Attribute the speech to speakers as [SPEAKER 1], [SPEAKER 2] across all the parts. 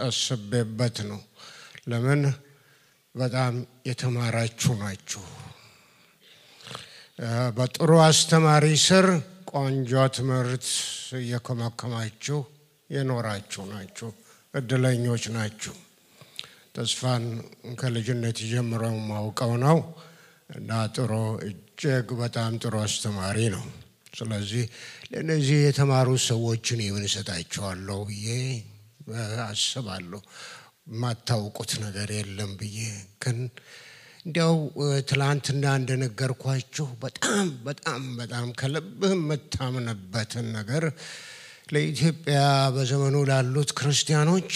[SPEAKER 1] አስቤበት ነው። ለምን በጣም የተማራችሁ ናችሁ። በጥሩ አስተማሪ ስር ቆንጆ ትምህርት እየከመከማችሁ የኖራችሁ ናችሁ። እድለኞች ናችሁ። ተስፋን ከልጅነት ጀምሮ ማውቀው ነው እና ጥሩ እጅግ በጣም ጥሩ አስተማሪ ነው። ስለዚህ ለነዚህ የተማሩ ሰዎችን ይወንሰጣቸዋለሁ ብዬ አስባለሁ። ማታውቁት ነገር የለም ብዬ ግን እንዲያው ትላንትና እንደነገርኳችሁ በጣም ከልብህ መታመንበትን ነገር ለኢትዮጵያ በዘመኑ ላሉት ክርስቲያኖች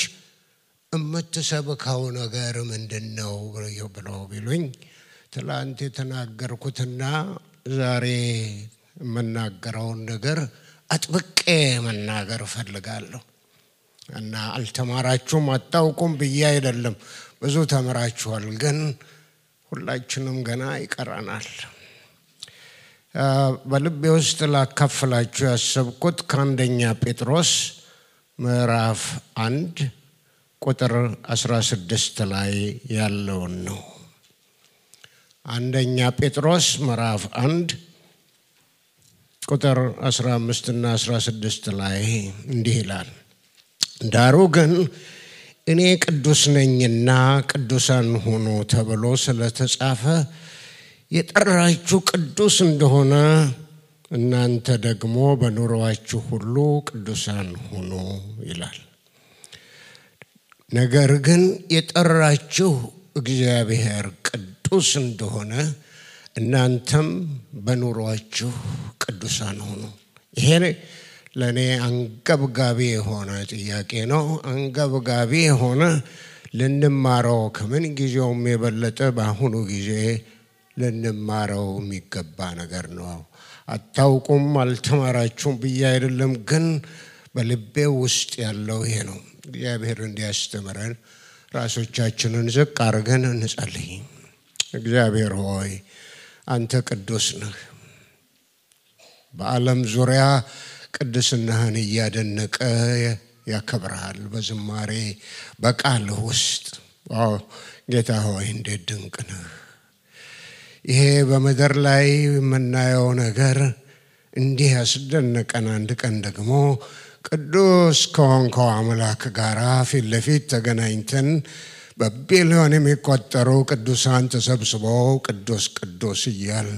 [SPEAKER 1] እምትሰብከው ነገር ምንድነው ብለው ቢሉኝ ትላንት የተናገርኩትና ዛሬ የምናገረውን ነገር አጥብቄ መናገር ፈልጋለሁ። እና አልተማራችሁም አታውቁም ብዬ አይደለም፣ ብዙ ተምራችኋል፣ ግን ሁላችንም ገና ይቀራናል። በልቤ ውስጥ ላካፍላችሁ ያሰብኩት ከአንደኛ ጴጥሮስ ምዕራፍ 1 ቁጥር 16 ላይ ያለውን ነው። አንደኛ ጴጥሮስ ምዕራፍ 1 ቁጥር 15 እና 16 ላይ እንዲህ ይላል። ዳሩ ግን እኔ ቅዱስ ነኝና ቅዱሳን ሁኑ ተብሎ ስለተጻፈ የጠራችሁ ቅዱስ እንደሆነ እናንተ ደግሞ በኑሮአችሁ ሁሉ ቅዱሳን ሁኑ ይላል። ነገር ግን የጠራችሁ እግዚአብሔር ቅዱስ እንደሆነ እናንተም በኑሮአችሁ ቅዱሳን ሁኑ። ይሄ ለኔ አንገብጋቢ የሆነ ጥያቄ ነው። አንገብጋቢ የሆነ ልንማረው ከምን ጊዜውም የበለጠ በአሁኑ ጊዜ ልንማረው የሚገባ ነገር ነው። አታውቁም አልተማራችሁም ብዬ አይደለም፣ ግን በልቤ ውስጥ ያለው ይሄ ነው። እግዚአብሔር እንዲያስተምረን ራሶቻችንን ዝቅ አድርገን እንጸልይ። እግዚአብሔር ሆይ አንተ ቅዱስ ነህ። በዓለም ዙሪያ ቅድስናህን እያደነቀ ያከብርሃል በዝማሬ በቃልህ ውስጥ። ጌታ ሆይ እንዴት ድንቅ ነህ። ይሄ በመድር ላይ የምናየው ነገር እንዲህ ያስደነቀን፣ አንድ ቀን ደግሞ ቅዱስ ከሆንከው አምላክ ጋር ፊት ለፊት ተገናኝተን በቢሊዮን የሚቆጠሩ ቅዱሳን ተሰብስበው ቅዱስ ቅዱስ እያል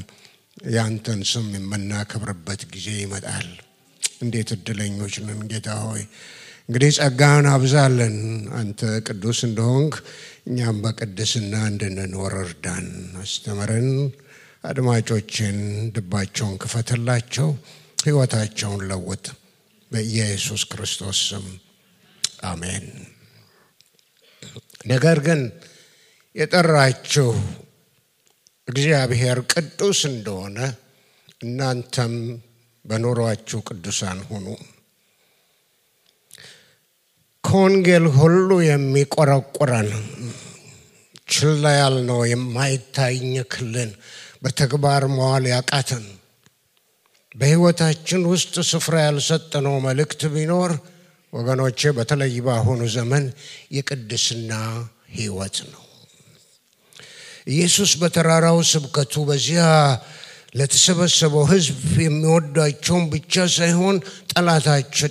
[SPEAKER 1] ያንተን ስም የምናከብርበት ጊዜ ይመጣል። እንዴት እድለኞች ነን ጌታ ሆይ። እንግዲህ ጸጋህን አብዛለን። አንተ ቅዱስ እንደሆንክ እኛም በቅድስና እንድንኖር እርዳን፣ አስተምረን። አድማጮችን ልባቸውን ክፈትላቸው፣ ሕይወታቸውን ለውጥ። በኢየሱስ ክርስቶስ ስም አሜን። ነገር ግን የጠራችሁ እግዚአብሔር ቅዱስ እንደሆነ እናንተም በኑሮአችሁ ቅዱሳን ሁኑ። ከወንጌል ሁሉ የሚቆረቁረን ችላ ያልነው የማይታኘክልን በተግባር መዋል ያቃተን በሕይወታችን ውስጥ ስፍራ ያልሰጠነው መልእክት ቢኖር ወገኖቼ፣ በተለይ በአሁኑ ዘመን የቅድስና ሕይወት ነው። ኢየሱስ በተራራው ስብከቱ በዚያ ለተሰበሰበው ሕዝብ የሚወዳቸውን ብቻ ሳይሆን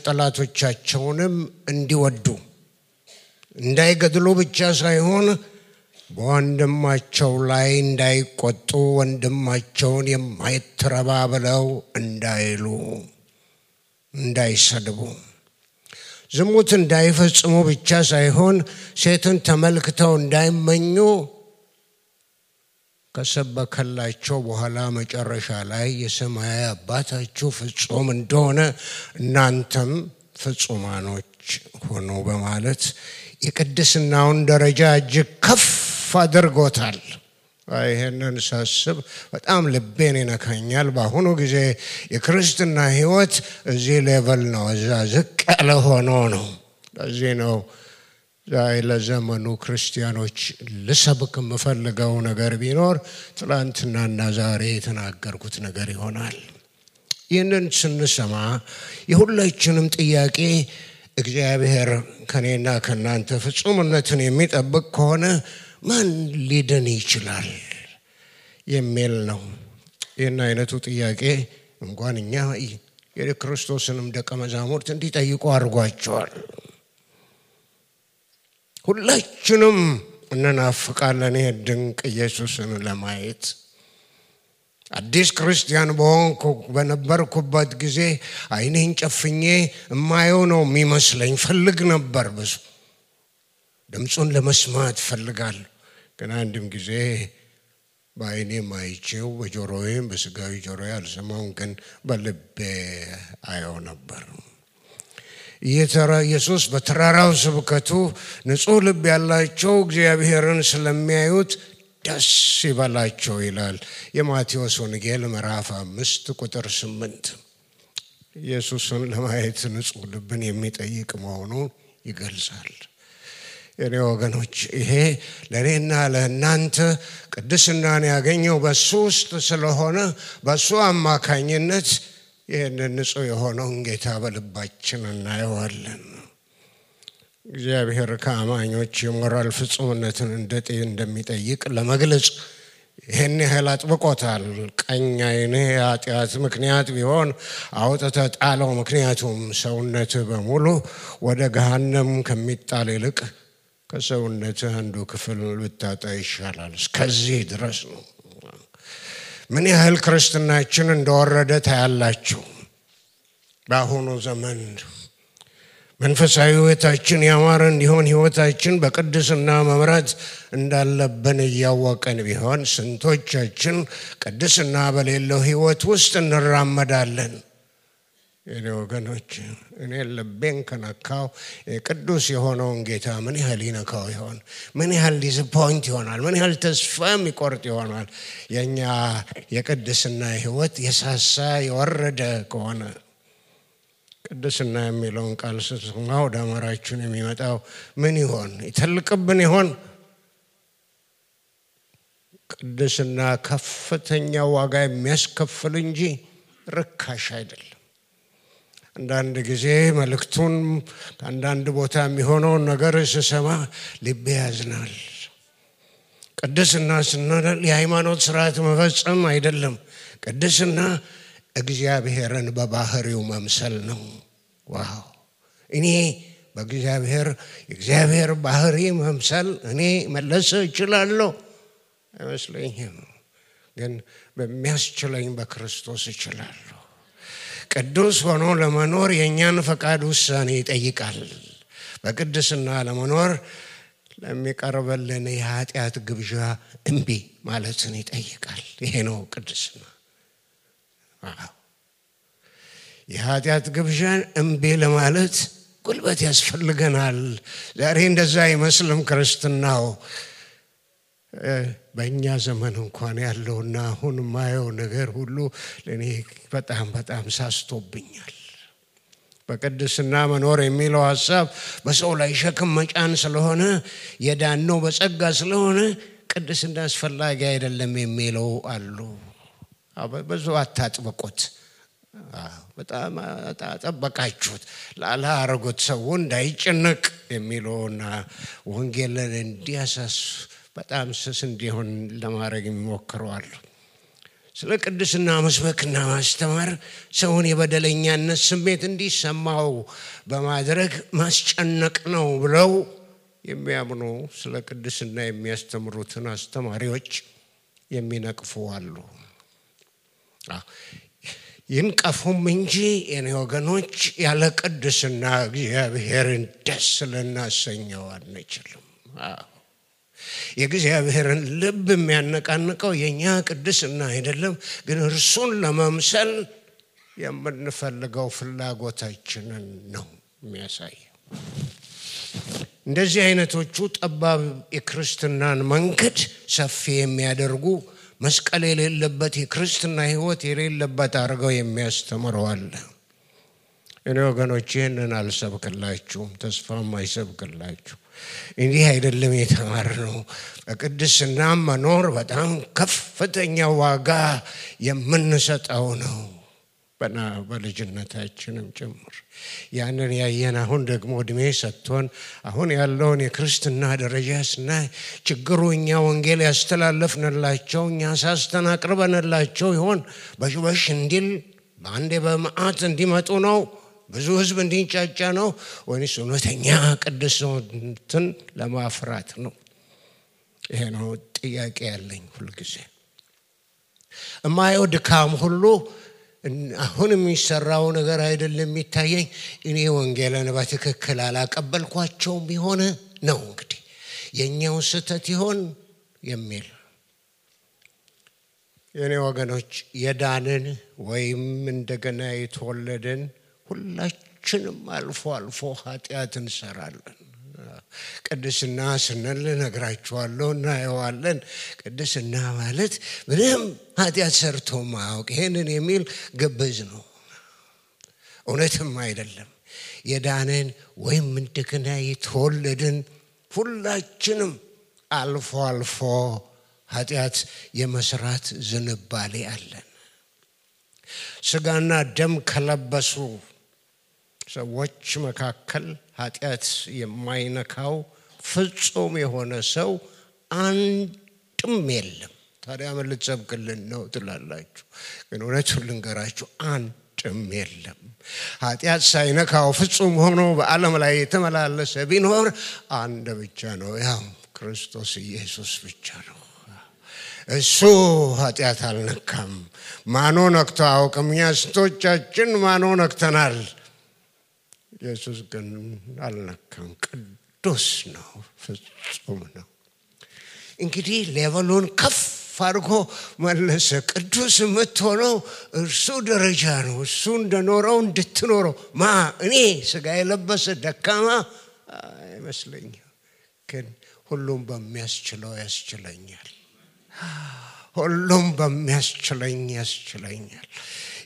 [SPEAKER 1] ጠላቶቻቸውንም እንዲወዱ፣ እንዳይገድሉ ብቻ ሳይሆን በወንድማቸው ላይ እንዳይቆጡ፣ ወንድማቸውን የማይተረባ ብለው እንዳይሉ፣ እንዳይሰድቡ፣ ዝሙት እንዳይፈጽሙ ብቻ ሳይሆን ሴትን ተመልክተው እንዳይመኙ ከሰበከላቸው በኋላ መጨረሻ ላይ የሰማያዊ አባታችሁ ፍጹም እንደሆነ እናንተም ፍጹማኖች ሆኑ በማለት የቅድስናውን ደረጃ እጅግ ከፍ አድርጎታል። ይሄንን ሳስብ በጣም ልቤን ይነካኛል። በአሁኑ ጊዜ የክርስትና ሕይወት እዚህ ሌቨል ነው፣ እዛ ዝቅ ያለ ሆኖ ነው። ለዚህ ነው ዛሬ ለዘመኑ ክርስቲያኖች ልሰብክ የምፈልገው ነገር ቢኖር ትላንትናና ዛሬ የተናገርኩት ነገር ይሆናል። ይህንን ስንሰማ የሁላችንም ጥያቄ እግዚአብሔር ከኔና ከናንተ ፍጹምነትን የሚጠብቅ ከሆነ ማን ሊድን ይችላል የሚል ነው። ይህን አይነቱ ጥያቄ እንኳን እኛ የክርስቶስንም ደቀ መዛሙርት እንዲጠይቁ አድርጓቸዋል። ሁላችንም እንናፍቃለን ድንቅ ኢየሱስን ለማየት። አዲስ ክርስቲያን በነበርኩበት ጊዜ አይኔን ጨፍኜ እማየው ነው የሚመስለኝ። ፈልግ ነበር፣ ብዙ ድምፁን ለመስማት ፈልጋለሁ። ግን አንድም ጊዜ በአይኔ ማይቼው በጆሮዬም በስጋዊ ጆሮዬ አልሰማውም፣ ግን በልቤ አየው ነበር። ኢየሱስ በተራራው ስብከቱ ንጹሕ ልብ ያላቸው እግዚአብሔርን ስለሚያዩት ደስ ይበላቸው ይላል። የማቴዎስ ወንጌል ምዕራፍ 5 ቁጥር 8 ኢየሱስን ለማየት ንጹሕ ልብን የሚጠይቅ መሆኑን ይገልጻል። የኔ ወገኖች ይሄ ለኔና ለእናንተ ቅድስናን ያገኘው በሱ ውስጥ ስለሆነ በሱ አማካኝነት ይህንን ንጹሕ የሆነውን ጌታ በልባችን እናየዋለን። እግዚአብሔር ከአማኞች የሞራል ፍጹምነትን እንደሚጠይቅ ለመግለጽ ይህን ያህል አጥብቆታል። ቀኝ ዓይንህ የኃጢአት ምክንያት ቢሆን አውጥተህ ጣለው፣ ምክንያቱም ሰውነትህ በሙሉ ወደ ገሃነም ከሚጣል ይልቅ ከሰውነትህ አንዱ ክፍል ብታጣ ይሻላል። እስከዚህ ድረስ ነው። ምን ያህል ክርስትናችን እንደወረደ ታያላችሁ። በአሁኑ ዘመን መንፈሳዊ ሕይወታችን ያማረ እንዲሆን ሕይወታችን በቅድስና መምራት እንዳለብን እያወቀን ቢሆን ስንቶቻችን ቅድስና በሌለው ሕይወት ውስጥ እንራመዳለን? የኔ ወገኖች እኔ ልቤን ከነካው ቅዱስ የሆነውን ጌታ ምን ያህል ይነካው ይሆን? ምን ያህል ዲስፖይንት ይሆናል? ምን ያህል ተስፋ የሚቆርጥ ይሆናል? የኛ የቅድስና ሕይወት የሳሳ የወረደ ከሆነ። ቅድስና የሚለውን ቃል ስትሰማ ወደ አእምሯችን የሚመጣው ምን ይሆን? ይተልቅብን ይሆን? ቅድስና ከፍተኛ ዋጋ የሚያስከፍል እንጂ ርካሽ አይደለም። አንዳንድ ጊዜ መልእክቱን አንዳንድ ቦታ የሚሆነውን ነገር ስሰማ ልቤ ያዝናል። ቅድስና ስንል የሃይማኖት ስርዓት መፈጸም አይደለም። ቅድስና እግዚአብሔርን በባህሪው መምሰል ነው። ዋው! እኔ የእግዚአብሔር ባህሪ መምሰል እኔ መለስ እችላለሁ አይመስለኝም፣ ግን በሚያስችለኝ በክርስቶስ እችላለሁ። ቅዱስ ሆኖ ለመኖር የኛን ፈቃድ ውሳኔ ይጠይቃል። በቅድስና ለመኖር ለሚቀርበልን የኃጢአት ግብዣ እምቢ ማለትን ይጠይቃል። ይሄ ነው ቅድስና። የኃጢአት ግብዣን እምቢ ለማለት ጉልበት ያስፈልገናል። ዛሬ እንደዛ አይመስልም ክርስትናው። በእኛ ዘመን እንኳን ያለውና አሁን ማየው ነገር ሁሉ ለኔ በጣም በጣም ሳስቶብኛል። በቅድስና መኖር የሚለው ሐሳብ በሰው ላይ ሸክም መጫን ስለሆነ የዳነው በጸጋ ስለሆነ ቅድስና አስፈላጊ አይደለም የሚለው አሉ። ብዙ አታጥብቁት። በጣም አጠበቃችሁት ላላረጉት ሰው እንዳይጨነቅ የሚለውና ወንጌልን እንዲያሳስ በጣም ስስ እንዲሆን ለማድረግ የሚሞክረዋል። ስለ ቅድስና መስበክና ማስተማር ሰውን የበደለኛነት ስሜት እንዲሰማው በማድረግ ማስጨነቅ ነው ብለው የሚያምኑ ስለ ቅድስና የሚያስተምሩትን አስተማሪዎች የሚነቅፉ አሉ። ይንቀፉም እንጂ የኔ ወገኖች ያለ ቅድስና እግዚአብሔርን ደስ ልናሰኘው አንችልም። የእግዚአብሔርን ልብ የሚያነቃንቀው የኛ ቅድስና አይደለም፣ ግን እርሱን ለመምሰል የምንፈልገው ፍላጎታችንን ነው የሚያሳየው። እንደዚህ አይነቶቹ ጠባብ የክርስትናን መንገድ ሰፊ የሚያደርጉ መስቀል የሌለበት የክርስትና ሕይወት የሌለበት አድርገው የሚያስተምረዋል። እኔ ወገኖቼ ይህንን አልሰብክላችሁም፣ ተስፋም አይሰብክላችሁ። እንዲህ አይደለም የተማርነው። በቅድስና መኖር በጣም ከፍተኛ ዋጋ የምንሰጠው ነው። በልጅነታችንም ጭምር ያንን ያየን አሁን ደግሞ እድሜ ሰጥቶን አሁን ያለውን የክርስትና ደረጃ ስናይ ችግሩ እኛ ወንጌል ያስተላለፍንላቸው እኛ ሳስተናቅርበንላቸው ይሆን በሽበሽ እንዲል በአንዴ በመዓት እንዲመጡ ነው ብዙ ህዝብ እንዲንጫጫ ነው ወይስ እውነተኛ ቅድስናን ለማፍራት ነው? ይሄ ነው ጥያቄ ያለኝ ሁልጊዜ። እማየው ድካም ሁሉ አሁን የሚሰራው ነገር አይደለም የሚታየኝ እኔ ወንጌልን በትክክል አላቀበልኳቸውም ቢሆን ነው እንግዲህ የኛው ስህተት ይሆን የሚል። የኔ ወገኖች የዳንን ወይም እንደገና የተወለድን ሁላችንም አልፎ አልፎ ኃጢአት እንሰራለን። ቅድስና ስንል ነግራችኋለሁ እናየዋለን። ቅድስና ማለት ምንም ኃጢአት ሰርቶ ማያውቅ ይሄንን የሚል ግብዝ ነው፣ እውነትም አይደለም። የዳንን ወይም እንደገና የተወለድን ሁላችንም አልፎ አልፎ ኃጢአት የመስራት ዝንባሌ አለን። ስጋና ደም ከለበሱ ሰዎች መካከል ኃጢአት የማይነካው ፍጹም የሆነ ሰው አንድም የለም። ታዲያ ምን ልትሰብክልን ነው ትላላችሁ? ግን እውነቱን ልንገራችሁ አንድም የለም። ኃጢአት ሳይነካው ፍጹም ሆኖ በዓለም ላይ የተመላለሰ ቢኖር አንድ ብቻ ነው፣ ያው ክርስቶስ ኢየሱስ ብቻ ነው። እሱ ኃጢአት አልነካም። ማኖ ነክቶ አያውቅም። እኛ ስንቶቻችን ማኖ ነክተናል። ኢየሱስ ግን አልነካም። ቅዱስ ነው፣ ፍጹም ነው። እንግዲህ ሌቨሉን ከፍ አድርጎ መለሰ። ቅዱስ የምትሆነው እርሱ ደረጃ ነው። እሱ እንደኖረው እንድትኖረው እኔ ስጋ የለበሰ ደካማ አይመስለኝም፣ ግን ሁሉም በሚያስችለው ያስችለኛል። ሁሉም በሚያስችለኝ ያስችለኛል።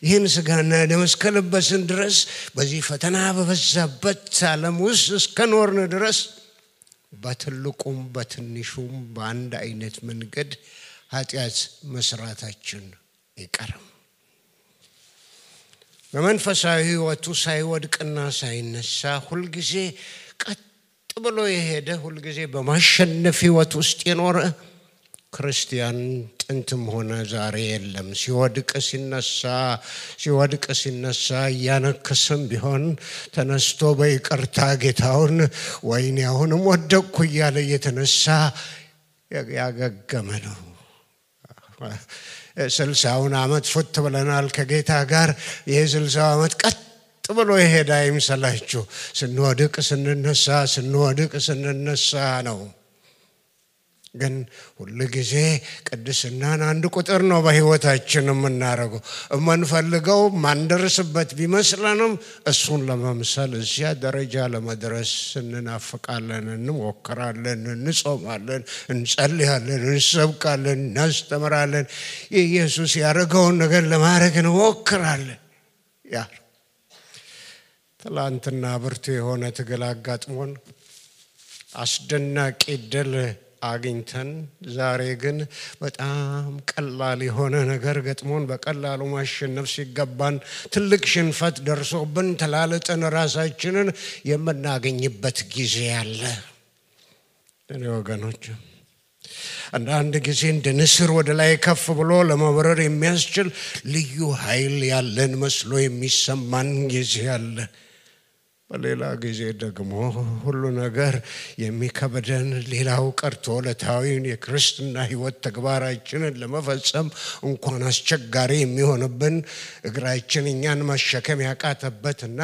[SPEAKER 1] ይህን ስጋና ደም እስከለበስን ድረስ በዚህ ፈተና በበዛበት ዓለም ውስጥ እስከኖርን ድረስ በትልቁም በትንሹም በአንድ አይነት መንገድ ኃጢአት መስራታችን አይቀርም። በመንፈሳዊ ሕይወቱ ሳይወድቅና ሳይነሳ ሁልጊዜ ቀጥ ብሎ የሄደ ሁልጊዜ በማሸነፍ ሕይወት ውስጥ የኖረ ክርስቲያን ጥንትም ሆነ ዛሬ የለም። ሲወድቅ ሲነሳ ያነከሰም ቢሆን ተነስቶ በይቅርታ ጌታውን ወይኔ አሁንም ወደቅኩ እያለ የተነሳ ያገገመ ነው። 60 ዓመት ፉት ብለናል ከጌታ ጋር። የ60 ዓመት ቀጥ ብሎ የሄደ አይምሰላችሁ። ስንወድቅ ስንነሳ ነው። ግን ሁሉ ጊዜ ቅድስናን አንድ ቁጥር ነው በህይወታችን የምናረገው። የምንፈልገው ማንደርስበት ቢመስለንም እሱን ለመምሰል እዚያ ደረጃ ለመድረስ እንናፍቃለን፣ እንሞክራለን፣ እንጾማለን፣ እንጸልያለን፣ እንሰብካለን፣ እናስተምራለን። ኢየሱስ ያደረገውን ነገር ለማድረግ እንሞክራለን። ያ ትላንትና ብርቱ የሆነ ትግል አጋጥሞን አስደናቂ ድል አግኝተን ዛሬ ግን በጣም ቀላል የሆነ ነገር ገጥሞን በቀላሉ ማሸነፍ ሲገባን ትልቅ ሽንፈት ደርሶብን ተላልጠን ራሳችንን የምናገኝበት ጊዜ አለ። እኔ ወገኖች አንዳንድ ጊዜ እንደ ንስር ወደ ላይ ከፍ ብሎ ለመብረር የሚያስችል ልዩ ኃይል ያለን መስሎ የሚሰማን ጊዜ አለ። በሌላ ጊዜ ደግሞ ሁሉ ነገር የሚከበደን ሌላው ቀርቶ ለታዊን የክርስትና ሕይወት ተግባራችንን ለመፈጸም እንኳን አስቸጋሪ የሚሆንብን እግራችን እኛን መሸከም ያቃተበትና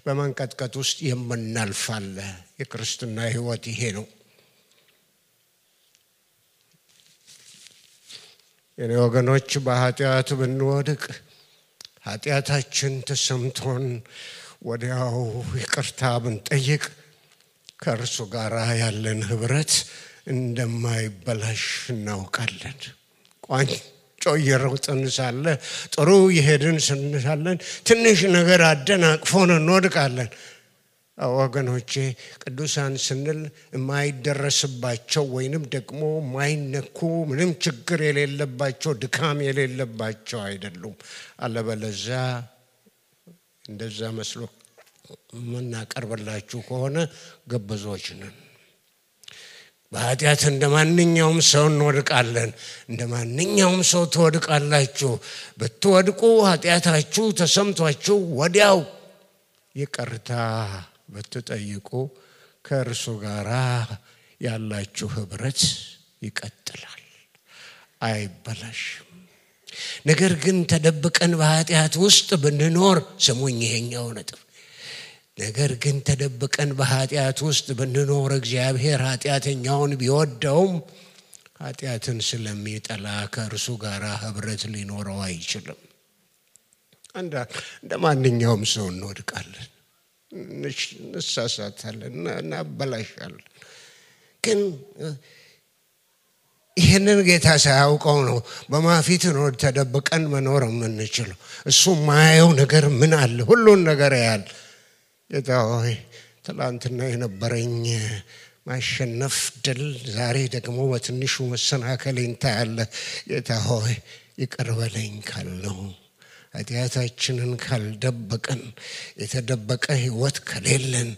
[SPEAKER 1] በመንቀጥቀጥ ውስጥ የምናልፋለ። የክርስትና ሕይወት ይሄ ነው። የኔ ወገኖች በኃጢአት ብንወድቅ ኃጢአታችን ተሰምቶን ወዲያው ይቅርታ ብንጠይቅ ከእርሱ ጋር ያለን ህብረት እንደማይበላሽ እናውቃለን። ቋንጮ እየሮጥን ሳለ ጥሩ የሄድን ስንሳለን ትንሽ ነገር አደናቅፎን እንወድቃለን። ወገኖቼ ቅዱሳን ስንል የማይደረስባቸው ወይንም ደግሞ ማይነኩ ምንም ችግር የሌለባቸው ድካም የሌለባቸው አይደሉም። አለበለዚያ እንደዛ መስሎ ምናቀርብላችሁ ከሆነ ገበዞች ነን። በኃጢአት እንደማንኛውም ሰው እንወድቃለን። እንደማንኛውም ሰው ትወድቃላችሁ። ብትወድቁ ኃጢአታችሁ ተሰምቷችሁ ወዲያው ይቅርታ ብትጠይቁ ከእርሱ ጋር ያላችሁ ህብረት ይቀጥላል፣ አይበላሽም። ነገር ግን ተደብቀን በኃጢአት ውስጥ ብንኖር ስሙኝ ይሄኛው ነጥብ። ነገር ግን ተደብቀን በኃጢአት ውስጥ ብንኖር እግዚአብሔር ኃጢአተኛውን ቢወደውም ኃጢአትን ስለሚጠላ ከእርሱ ጋር ህብረት ሊኖረው አይችልም። እንደማንኛውም ሰው እንወድቃለን፣ እንሳሳታለን፣ እናበላሻለን። ግን ይህንን ጌታ ሳያውቀው ነው በማፊት ነው ተደብቀን መኖር የምንችለው። እሱ ማየው ነገር ምን አለ? ሁሉን ነገር ያያል። ጌታ ሆይ ትላንትና የነበረኝ ማሸነፍ ድል ዛሬ ደግሞ በትንሹ መሰናከሌን ታያለህ። ጌታ ሆይ ይቅር በለኝ ካልነው ኃጢአታችንን ካልደበቀን የተደበቀ ህይወት ከሌለን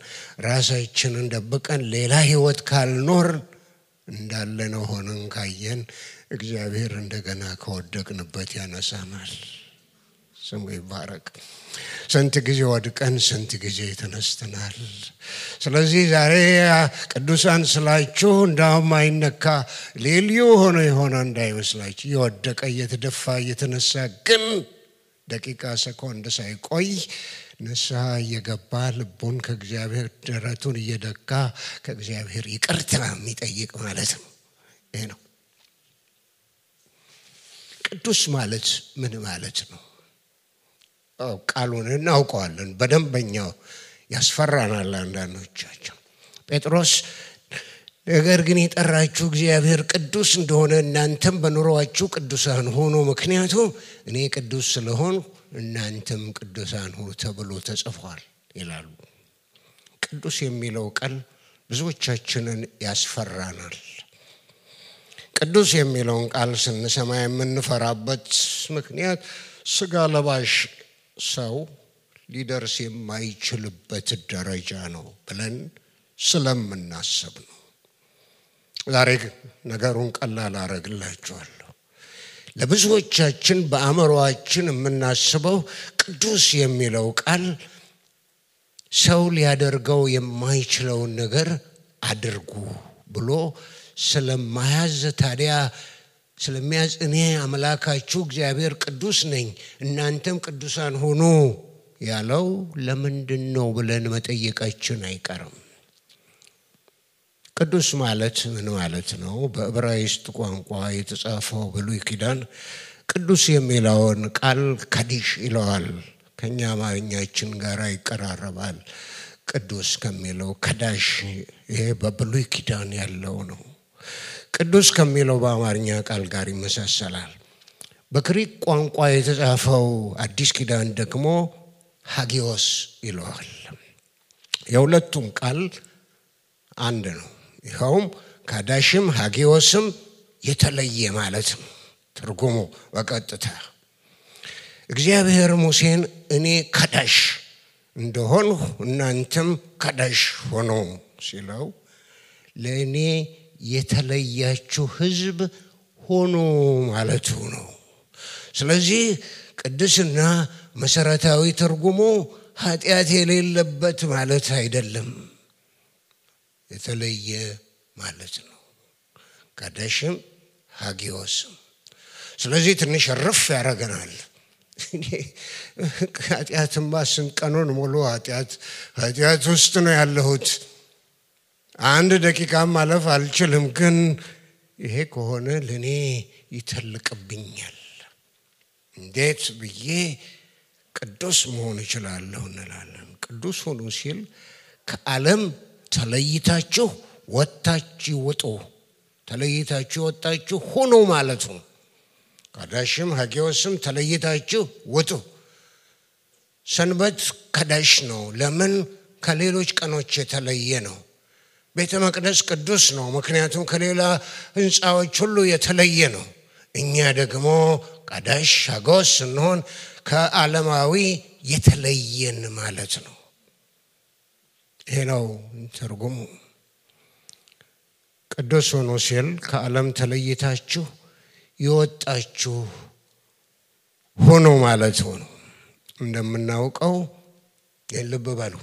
[SPEAKER 1] ራሳችንን ደብቀን ሌላ ህይወት ካልኖር እንዳለነው ሆነን ካየን እግዚአብሔር እንደገና ከወደቅንበት ያነሳናል። ስሙ ይባረክ። ስንት ጊዜ ወድቀን ስንት ጊዜ ተነስተናል። ስለዚህ ዛሬ ቅዱሳን ስላችሁ እንዳውም አይነካ ልዩ ሆኖ የሆነ እንዳይመስላችሁ። የወደቀ እየተደፋ እየተነሳ ግን ደቂቃ ሰኮንድ ሳይቆይ ንስሐ እየገባ ልቡን ከእግዚአብሔር ደረቱን እየደካ ከእግዚአብሔር ይቅርታ የሚጠይቅ ማለት ነው። ይሄ ነው ቅዱስ ማለት። ምን ማለት ነው? ቃሉን እናውቀዋለን በደንበኛው ያስፈራናል አንዳንዶቻችን። ጴጥሮስ ነገር ግን የጠራችሁ እግዚአብሔር ቅዱስ እንደሆነ እናንተም በኑሮአችሁ ቅዱሳን ሆኑ፣ ምክንያቱም እኔ ቅዱስ ስለሆን እናንተም ቅዱሳን ሁኑ ተብሎ ተጽፏል ይላሉ። ቅዱስ የሚለው ቃል ብዙዎቻችንን ያስፈራናል። ቅዱስ የሚለውን ቃል ስንሰማ የምንፈራበት ምክንያት ስጋ ለባሽ ሰው ሊደርስ የማይችልበት ደረጃ ነው ብለን ስለምናስብ ነው። ዛሬ ነገሩን ቀላል አረግላችኋለሁ። ለብዙዎቻችን በአእምሮአችን የምናስበው ቅዱስ የሚለው ቃል ሰው ሊያደርገው የማይችለውን ነገር አድርጉ ብሎ ስለማያዝ ታዲያ ስለሚያዝ እኔ አምላካችሁ እግዚአብሔር ቅዱስ ነኝ እናንተም ቅዱሳን ሁኑ ያለው ለምንድነው ብለን መጠየቃችን አይቀርም። ቅዱስ ማለት ምን ማለት ነው? በዕብራይስጥ ቋንቋ የተጻፈው ብሉይ ኪዳን ቅዱስ የሚለውን ቃል ካዲሽ ይለዋል። ከኛ አማርኛችን ጋር ይቀራረባል። ቅዱስ ከሚለው ከዳሽ ይሄ በብሉይ ኪዳን ያለው ነው። ቅዱስ ከሚለው በአማርኛ ቃል ጋር ይመሳሰላል። በግሪክ ቋንቋ የተጻፈው አዲስ ኪዳን ደግሞ ሃጊዮስ ይለዋል። የሁለቱም ቃል አንድ ነው። ይኸውም ካዳሽም ሃጊዮስም የተለየ ማለት ነው ትርጉሙ በቀጥታ። እግዚአብሔር ሙሴን እኔ ካዳሽ እንደሆንሁ እናንተም ካዳሽ ሆኖ ሲለው ለእኔ የተለያችሁ ሕዝብ ሆኖ ማለቱ ነው። ስለዚህ ቅድስና መሰረታዊ ትርጉሙ ኃጢአት የሌለበት ማለት አይደለም፣ የተለየ ማለት ነው። ካዳሽም ሃጊዮስም። ስለዚህ ትንሽ ረፍ ያረጋናል። ኃጢአትማ ስንቀኑን ሙሉ ኃጢአት ውስጥ ነው ያለሁት፣ አንድ ደቂቃ ማለፍ አልችልም። ግን ይሄ ከሆነ ለኔ ይተልቅብኛል፣ እንዴት ብዬ ቅዱስ መሆን እችላለሁ እንላለን። ቅዱስ ሆኑ ሲል ከዓለም ተለይታችሁ ወጣችሁ ወጡ፣ ተለይታችሁ ወጣችሁ ሆኖ ማለት ነው። ካዳሽም ሃጊዮስም ተለይታችሁ ወጡ። ሰንበት ካዳሽ ነው። ለምን? ከሌሎች ቀኖች የተለየ ነው። ቤተ መቅደስ ቅዱስ ነው፣ ምክንያቱም ከሌላ ህንፃዎች ሁሉ የተለየ ነው። እኛ ደግሞ ቀዳሽ ሀጎስ ስንሆን ከዓለማዊ የተለየን ማለት ነው። ይሄ ነው ትርጉሙ። ቅዱስ ሆኖ ሲል ከዓለም ተለይታችሁ የወጣችሁ ሆኖ ማለት ነው። እንደምናውቀው ልብ በሉ፣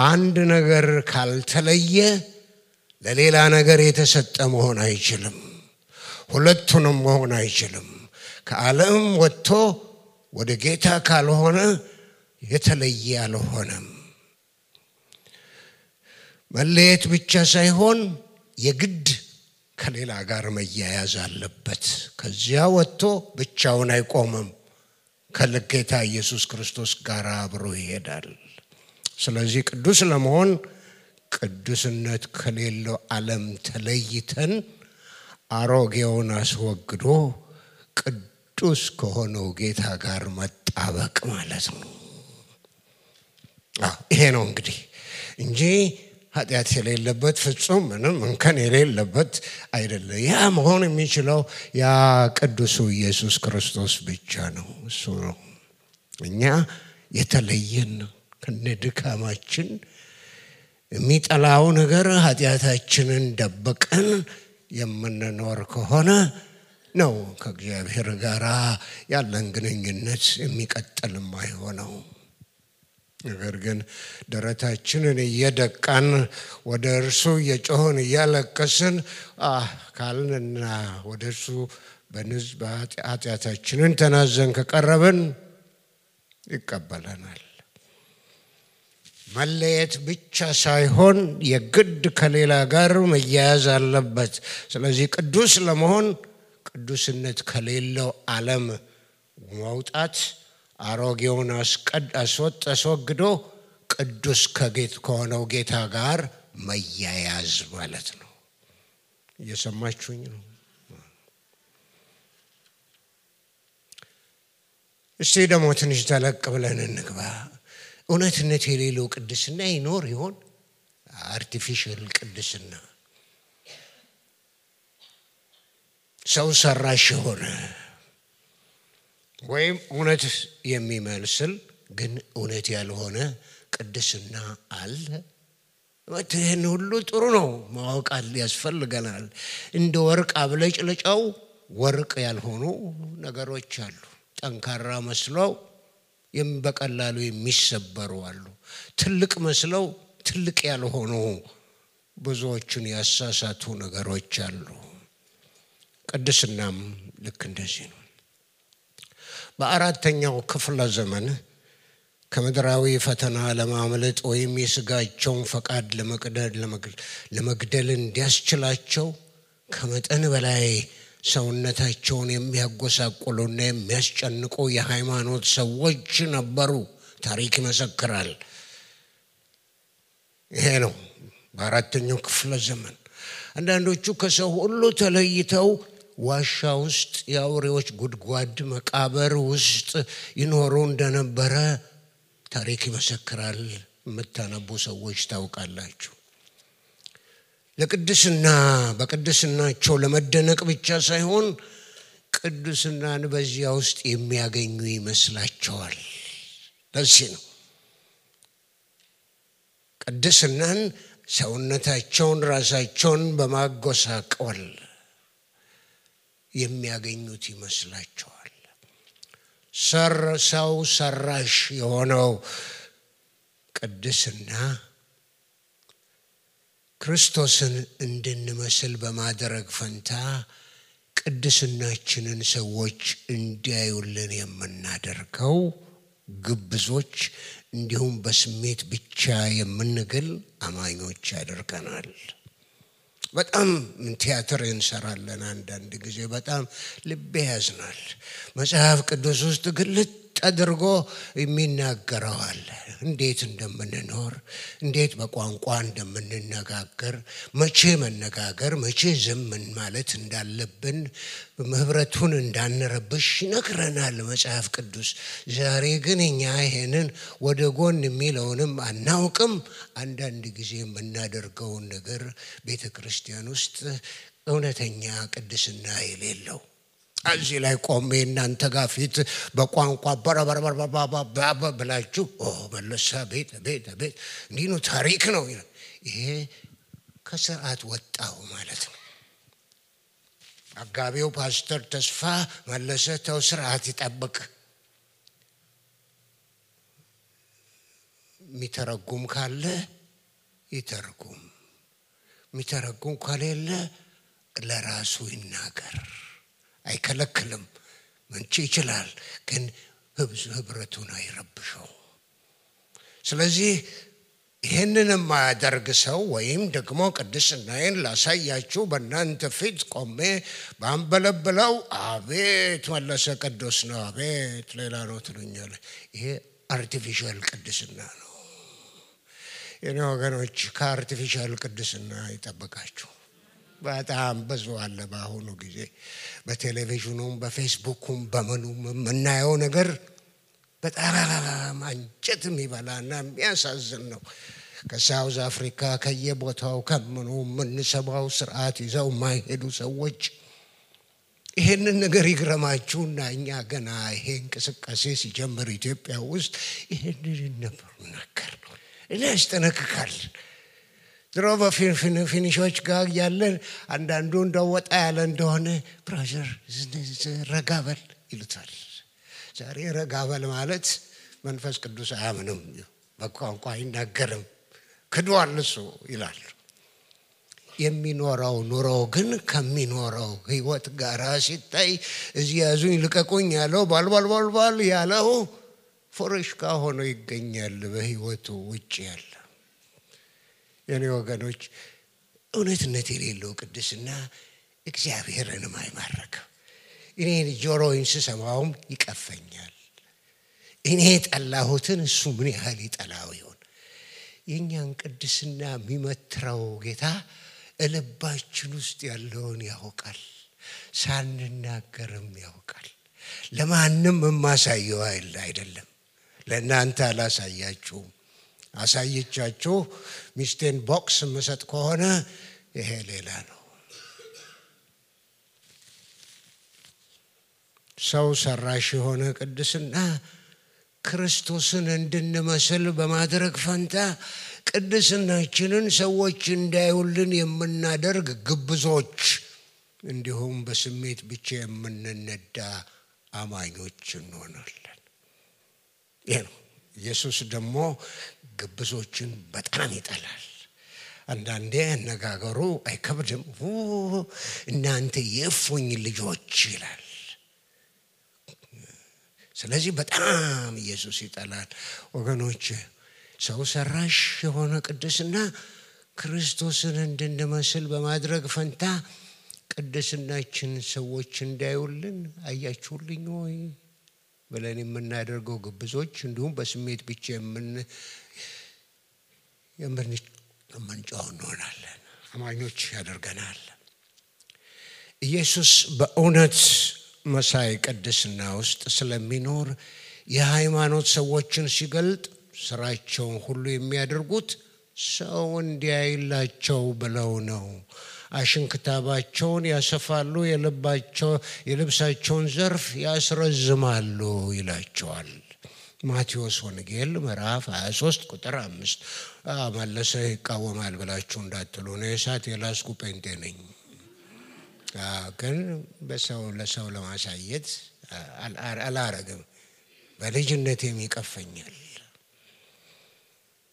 [SPEAKER 1] አንድ ነገር ካልተለየ ለሌላ ነገር የተሰጠ መሆን አይችልም። ሁለቱንም መሆን አይችልም። ከዓለም ወጥቶ ወደ ጌታ ካልሆነ የተለየ አልሆነም። መለየት ብቻ ሳይሆን የግድ ከሌላ ጋር መያያዝ አለበት። ከዚያ ወጥቶ ብቻውን አይቆምም። ከጌታ ኢየሱስ ክርስቶስ ጋር አብሮ ይሄዳል። ስለዚህ ቅዱስ ለመሆን ቅዱስነት ከሌለው ዓለም ተለይተን አሮጌውን አስወግዶ ቅዱስ ከሆነው ጌታ ጋር መጣበቅ ማለት ነው። ይሄ ነው እንግዲህ እንጂ ኃጢአት የሌለበት ፍጹም ምንም እንከን የሌለበት አይደለም። ያ መሆን የሚችለው ያ ቅዱሱ ኢየሱስ ክርስቶስ ብቻ ነው። እሱ ነው እኛ የተለየን ከነድካማችን የሚጠላው ነገር ኃጢአታችንን ደብቀን የምንኖር ከሆነ ነው ከእግዚአብሔር ጋር ያለን ግንኙነት የሚቀጥልም አይሆነው። ነገር ግን ደረታችንን እየደቃን ወደ እርሱ እየጮህን እያለቀስን ካልንና ወደ እርሱ ኃጢአታችንን ተናዘን ከቀረብን ይቀበለናል። መለየት ብቻ ሳይሆን የግድ ከሌላ ጋር መያያዝ አለበት። ስለዚህ ቅዱስ ለመሆን ቅዱስነት ከሌለው ዓለም መውጣት፣ አሮጌውን አስወግዶ ቅዱስ ከሆነው ጌታ ጋር መያያዝ ማለት ነው። እየሰማችሁኝ ነው? እስቲ ደግሞ ትንሽ ተለቅ ብለን እንግባ። እውነትነት የሌለው ቅድስና ይኖር ይሆን? አርቲፊሻል ቅድስና፣ ሰው ሰራሽ የሆነ ወይም እውነት የሚመስል ግን እውነት ያልሆነ ቅድስና አለ? ይህን ሁሉ ጥሩ ነው ማወቅ ያስፈልገናል። እንደ ወርቅ አብለጭልጫው ወርቅ ያልሆኑ ነገሮች አሉ። ጠንካራ መስለው በቀላሉ የሚሰበሩ አሉ። ትልቅ መስለው ትልቅ ያልሆኑ ብዙዎችን ያሳሳቱ ነገሮች አሉ። ቅድስናም ልክ እንደዚህ ነው። በአራተኛው ክፍለ ዘመን ከምድራዊ ፈተና ለማምለጥ ወይም የሥጋቸውን ፈቃድ ለመግደል እንዲያስችላቸው ከመጠን በላይ ሰውነታቸውን የሚያጎሳቁሉና የሚያስጨንቁ የሃይማኖት ሰዎች ነበሩ። ታሪክ ይመሰክራል። ይሄ ነው በአራተኛው ክፍለ ዘመን። አንዳንዶቹ ከሰው ሁሉ ተለይተው ዋሻ ውስጥ የአውሬዎች ጉድጓድ መቃብር ውስጥ ይኖሩ እንደነበረ ታሪክ ይመሰክራል። የምታነቡ ሰዎች ታውቃላችሁ። ለቅድስና በቅድስናቸው ለመደነቅ ብቻ ሳይሆን ቅድስናን በዚያ ውስጥ የሚያገኙ ይመስላቸዋል። ለዚህ ነው ቅድስናን ሰውነታቸውን ራሳቸውን በማጎሳቆል የሚያገኙት ይመስላቸዋል። ሰው ሰራሽ የሆነው ቅድስና ክርስቶስን እንድንመስል በማድረግ ፈንታ ቅድስናችንን ሰዎች እንዲያዩልን የምናደርገው ግብዞች እንዲሁም በስሜት ብቻ የምንገል አማኞች ያደርገናል። በጣም ቲያትር እንሰራለን አንዳንድ ጊዜ። በጣም ልብ ያዝናል። መጽሐፍ ቅዱስ ውስጥ ግልጥ አድርጎ የሚናገረዋል። እንዴት እንደምንኖር፣ እንዴት በቋንቋ እንደምንነጋገር፣ መቼ መነጋገር መቼ ዝም ማለት እንዳለብን፣ ህብረቱን እንዳንረብሽ ይነግረናል መጽሐፍ ቅዱስ። ዛሬ ግን እኛ ይሄንን ወደ ጎን የሚለውንም አናውቅም። አንዳንድ ጊዜ የምናደርገውን ነገር ቤተክርስቲያን ውስጥ እውነተኛ ቅድስና የሌለው እዚህ ላይ ቆሜ እናንተ ጋር ፊት በቋንቋ በረበረበረበ ብላችሁ መለሳ ቤት እንዲህ ነው ታሪክ ነው። ይሄ ከስርዓት ወጣው ማለት ነው። አጋቢው ፓስተር ተስፋ መለሰ ተው ስርዓት ይጠብቅ። የሚተረጉም ካለ ይተርጉም፣ የሚተረጉም ከሌለ ለራሱ ይናገር። አይከለክልም፣ መንቺ ይችላል፣ ግን ህብረቱን አይረብሸው። ስለዚህ ይሄንን የማያደርግ ሰው ወይም ደግሞ ቅድስናዬን ላሳያችሁ በእናንተ ፊት ቆሜ ባንበለብለው አቤት መለሰ ቅዱስ ነው፣ አቤት ሌላ ነው ትሉኛለህ። ይሄ አርቲፊሻል ቅድስና ነው። የኔ ወገኖች ከአርቲፊሻል ቅድስና ይጠብቃችሁ። በጣም ብዙ አለ በአሁኑ ጊዜ በቴሌቪዥኑም በፌስቡኩም በመኑም የምናየው ነገር በጣም አንጀት የሚበላና የሚያሳዝን ነው። ከሳውዝ አፍሪካ ከየቦታው ከምኑ የምንሰማው ስርዓት ይዘው የማይሄዱ ሰዎች ይሄንን ነገር ይግረማችሁና እኛ ገና ይሄ እንቅስቃሴ ሲጀምር ኢትዮጵያ ውስጥ ይሄንን ነበር ነገር ነው ያስጠነቅቃል። ድሮ በፊኒሾች ጋር ያለን አንዳንዱ እንደወጣ ያለ እንደሆነ ብራዘር ረጋበል ይሉታል። ዛሬ ረጋበል ማለት መንፈስ ቅዱስ አያምንም፣ በቋንቋ አይናገርም፣ ክዷል እሱ ይላል። የሚኖረው ኑሮ ግን ከሚኖረው ህይወት ጋር ሲታይ እዚህ ያዙኝ ልቀቁኝ ያለው ባልባል ያለው ፎረሽካ ሆኖ ይገኛል በህይወቱ ውጭ ያለ። የኔ ወገኖች እውነትነት የሌለው ቅድስና እግዚአብሔርንም አይማርክም። እኔ ጆሮዬን ስሰማውም ይቀፈኛል። እኔ ጠላሁትን እሱ ምን ያህል ይጠላው ይሆን? የኛን ቅድስና የሚመትረው ጌታ ልባችን ውስጥ ያለውን ያውቃል፣ ሳንናገርም ያውቃል። ለማንም የማሳየው አይደለም። ለእናንተ አላሳያችሁም። አሳይቻችሁ ሚስቴን ቦክስ መስጠት ከሆነ ይሄ ሌላ ነው። ሰው ሰራሽ የሆነ ቅድስና ክርስቶስን እንድንመስል በማድረግ ፈንታ ቅድስናችንን ሰዎች እንዳይውልን የምናደርግ ግብዞች፣ እንዲሁም በስሜት ብቻ የምንነዳ አማኞች እንሆናለን። ይሄ ነው። ኢየሱስ ደግሞ ግብዞችን በጣም ይጠላል። አንዳንዴ አነጋገሩ አይከብድም። እናንተ የእፉኝ ልጆች ይላል። ስለዚህ በጣም ኢየሱስ ይጠላል። ወገኖች ሰው ሰራሽ የሆነ ቅድስና ክርስቶስን እንድንመስል በማድረግ ፈንታ ቅድስናችን ሰዎች እንዳይውልን አያችሁልኝ ወይ ብለን የምናደርገው ግብዞች፣ እንዲሁም በስሜት ብቻ የምንጮህ እንሆናለን። አማኞች ያደርገናል። ኢየሱስ በእውነት መሳይ ቅድስና ውስጥ ስለሚኖር የሃይማኖት ሰዎችን ሲገልጥ ስራቸውን ሁሉ የሚያደርጉት ሰው እንዲያይላቸው ብለው ነው። አሽንክታባቸውን ያሰፋሉ፣ የልብሳቸውን ዘርፍ ያስረዝማሉ ይላቸዋል። ማቴዎስ ወንጌል ምዕራፍ 23 ቁጥር 5። መለሰ ይቃወማል ብላችሁ እንዳትሉ ነው። የእሳት የላስኩ ጴንጤ ነኝ፣ ግን ለሰው ለማሳየት አላረግም። በልጅነቴም ይቀፈኛል።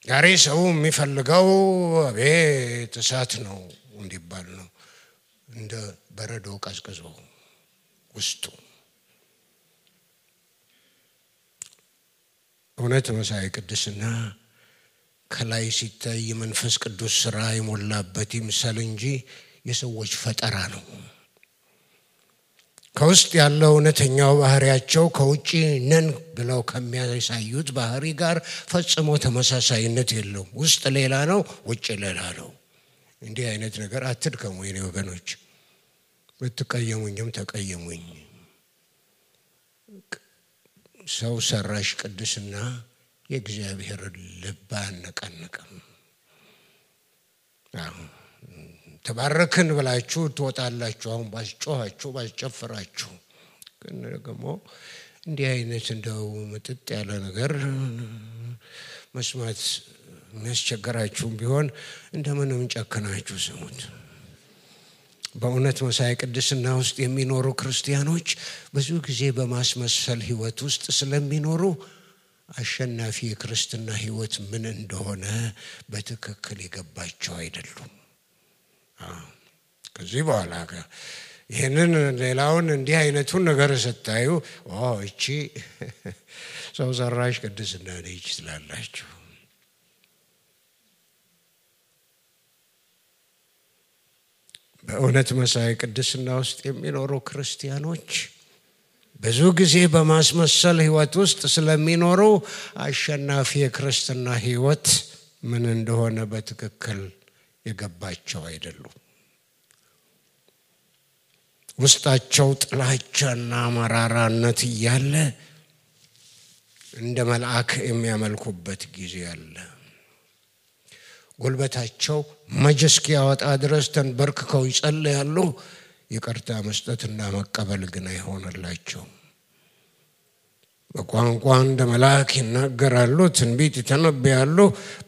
[SPEAKER 1] ዛሬ ሰው የሚፈልገው አቤት እሳት ነው እንዲባል ነው። እንደ በረዶ ቀዝቅዞ ውስጡ እውነት መሳይ ቅድስና ከላይ ሲታይ መንፈስ ቅዱስ ስራ የሞላበት ይምሰል እንጂ የሰዎች ፈጠራ ነው። ከውስጥ ያለው እውነተኛው ባህሪያቸው ከውጪ ነን ብለው ከሚያሳዩት ባህሪ ጋር ፈጽሞ ተመሳሳይነት የለውም። ውስጥ ሌላ ነው፣ ውጭ ሌላ ነው። እንዲህ አይነት ነገር አትድከሙ የኔ ወገኖች። ብትቀየሙኝም ተቀየሙኝ። ሰው ሰራሽ ቅድስና የእግዚአብሔር ልብ አያነቃንቅም። ተባረክን ብላችሁ ትወጣላችሁ። አሁን ባስጮኻችሁ ባስጨፍራችሁ፣ ግን ደግሞ እንዲህ አይነት እንደው ምጥጥ ያለ ነገር መስማት የሚያስቸግራችሁም ቢሆን እንደምንም ጨክናችሁ ስሙት። በእውነት መሳይ ቅድስና ውስጥ የሚኖሩ ክርስቲያኖች ብዙ ጊዜ በማስመሰል ህይወት ውስጥ ስለሚኖሩ አሸናፊ የክርስትና ህይወት ምን እንደሆነ በትክክል የገባቸው አይደሉም። ከዚህ በኋላ ይሄንን ሌላውን እንዲህ አይነቱን ነገር ስታዩ እቺ ሰው ሰራሽ ቅድስና ነች ትላላችሁ። በእውነት መሳይ ቅድስና ውስጥ የሚኖሩ ክርስቲያኖች ብዙ ጊዜ በማስመሰል ህይወት ውስጥ ስለሚኖሩ አሸናፊ የክርስትና ህይወት ምን እንደሆነ በትክክል የገባቸው አይደሉም። ውስጣቸው ጥላቻና መራራነት እያለ እንደ መልአክ የሚያመልኩበት ጊዜ አለ። ጉልበታቸው መጀስኪ ያወጣ ድረስ ተንበርክከው ይጸልያሉ። ይቅርታ መስጠትና መቀበል ግን አይሆንላቸው። በቋንቋ እንደ መልአክ ይናገራሉ፣ ትንቢት ይተነብያሉ።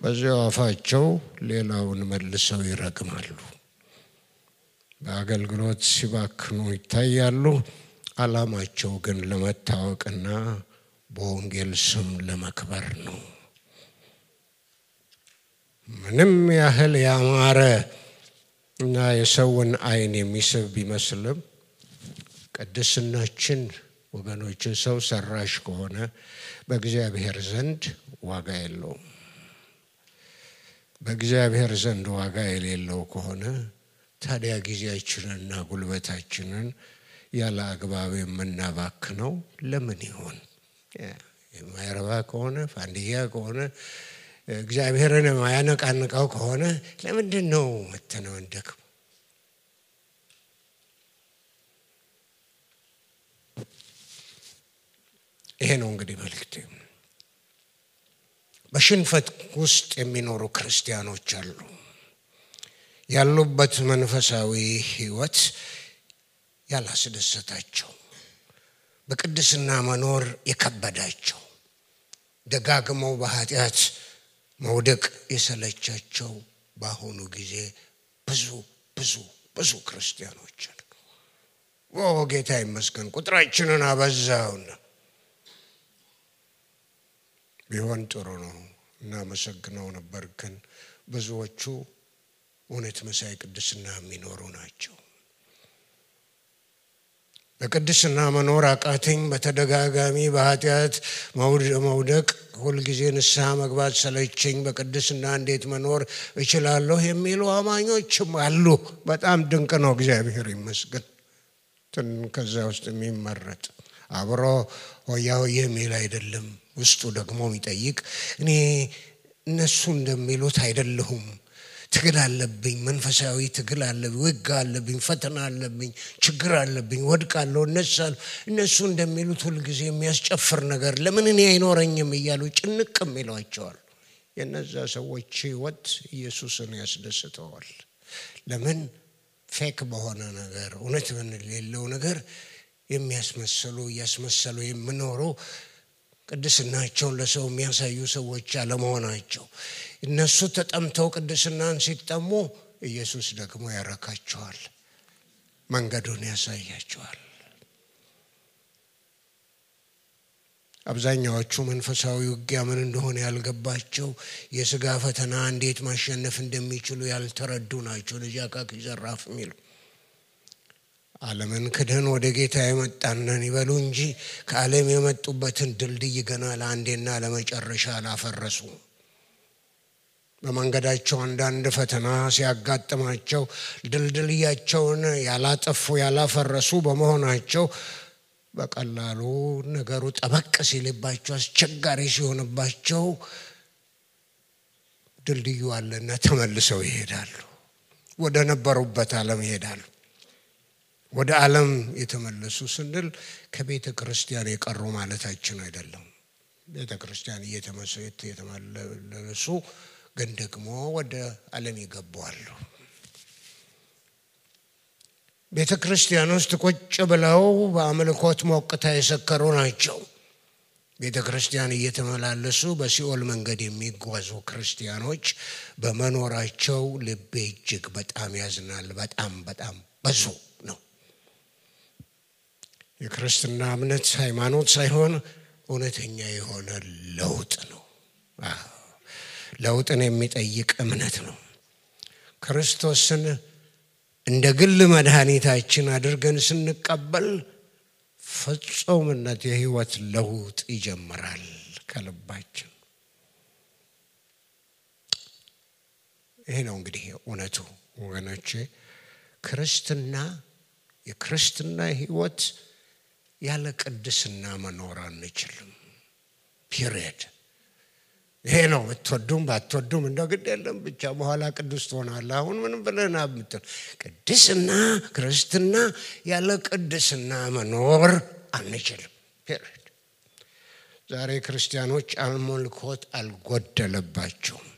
[SPEAKER 1] በዚያው አፋቸው ሌላውን መልሰው ይረግማሉ። በአገልግሎት ሲባክኑ ይታያሉ። ዓላማቸው ግን ለመታወቅና በወንጌል ስም ለመክበር ነው። ምንም ያህል ያማረ እና የሰውን አይን የሚስብ ቢመስልም ቅድስናችን ወገኖች ሰው ሰራሽ ከሆነ በእግዚአብሔር ዘንድ ዋጋ የለውም። በእግዚአብሔር ዘንድ ዋጋ የሌለው ከሆነ ታዲያ ጊዜያችንንና ጉልበታችንን ያለ አግባብ የምናባክነው ለምን ይሆን? የማይረባ ከሆነ ፋንዲያ ከሆነ እግዚአብሔርን የማያነቃንቀው ከሆነ ለምንድን ነው መተናንደከው? ይሄ ነው እንግዲህ መልእክቴ። በሽንፈት ውስጥ የሚኖሩ ክርስቲያኖች አሉ። ያሉበት መንፈሳዊ ህይወት ያላስደሰታቸው፣ በቅድስና መኖር የከበዳቸው፣ ደጋግመው በኃጢአት መውደቅ የሰለቻቸው በአሁኑ ጊዜ ብዙ ክርስቲያኖች አሉ። ጌታ ይመስገን ቁጥራችንን አበዛውና ቢሆን ጥሩ ነው እናመሰግነው ነበር። ግን ብዙዎቹ እውነት መሳይ ቅድስና የሚኖሩ ናቸው። በቅድስና መኖር አቃተኝ፣ በተደጋጋሚ በኃጢአት መውደቅ፣ ሁልጊዜ ንስሐ መግባት ሰለቸኝ፣ በቅድስና እንዴት መኖር እችላለሁ የሚሉ አማኞችም አሉ። በጣም ድንቅ ነው፣ እግዚአብሔር ይመስገን። ከዛ ውስጥ የሚመረጥ አብሮ ሆያ ሆዬ የሚል አይደለም። ውስጡ ደግሞ የሚጠይቅ እኔ እነሱ እንደሚሉት አይደለሁም፣ ትግል አለብኝ፣ መንፈሳዊ ትግል አለብኝ፣ ውጋ አለብኝ፣ ፈተና አለብኝ፣ ችግር አለብኝ፣ ወድቃለሁ፣ እነሳለሁ። እነሱ እንደሚሉት ሁልጊዜ የሚያስጨፍር ነገር ለምን እኔ አይኖረኝም እያሉ ጭንቅም ይሏቸዋል። የነዛ ሰዎች ህይወት ኢየሱስን ያስደስተዋል። ለምን? ፌክ በሆነ ነገር እውነት በሌለው ነገር እያስመሰሉ የሚኖሩ ቅድስናቸውን ለሰው የሚያሳዩ ሰዎች አለመሆናቸው። እነሱ ተጠምተው ቅድስናን ሲጠሙ ኢየሱስ ደግሞ ያረካቸዋል፣ መንገዱን ያሳያቸዋል። አብዛኛዎቹ መንፈሳዊ ውጊያ ምን እንደሆነ ያልገባቸው፣ የሥጋ ፈተና እንዴት ማሸነፍ እንደሚችሉ ያልተረዱ ናቸው። ለጃካክ ይዘራፍ የሚሉ ዓለምን ክደን ወደ ጌታ የመጣነን ይበሉ እንጂ ከዓለም የመጡበትን ድልድይ ገና ለአንዴና ለመጨረሻ አላፈረሱ። በመንገዳቸው አንዳንድ ፈተና ሲያጋጥማቸው ድልድያቸውን ያላጠፉ ያላፈረሱ በመሆናቸው በቀላሉ ነገሩ ጠበቅ ሲልባቸው አስቸጋሪ ሲሆንባቸው ድልድዩ አለና ተመልሰው ይሄዳሉ። ወደ ነበሩበት ዓለም ይሄዳሉ። ወደ ዓለም የተመለሱ ስንል ከቤተ ክርስቲያን የቀሩ ማለታችን አይደለም። ቤተ ክርስቲያን እየተመለሱ ግን ደግሞ ወደ ዓለም ይገባሉ። ቤተ ክርስቲያን ውስጥ ቁጭ ብለው በአምልኮት ሞቅታ የሰከሩ ናቸው። ቤተ ክርስቲያን እየተመላለሱ በሲኦል መንገድ የሚጓዙ ክርስቲያኖች በመኖራቸው ልቤ እጅግ በጣም ያዝናል። በጣም ብዙ ነው። የክርስትና እምነት ሃይማኖት ሳይሆን እውነተኛ የሆነ ለውጥ ነው። ለውጥን የሚጠይቅ እምነት ነው። ክርስቶስን እንደ ግል መድኃኒታችን አድርገን ስንቀበል ፍጹምነት የህይወት ለውጥ ይጀምራል ከልባችን። ይሄ ነው እንግዲህ እውነቱ ወገኖቼ። የክርስትና ህይወት ያለ ቅድስና መኖር አንችልም። ፒሪየድ። ይሄ ነው። ብትወዱም ባትወዱም እንደው ግድ የለም ብቻ በኋላ ቅዱስ ትሆናለህ። አሁን ምን ብለና ብትል ቅድስና ክርስትና ያለ ቅድስና መኖር አንችልም። ፒሪየድ። ዛሬ ክርስቲያኖች አምልኮት አልጎደለባቸውም።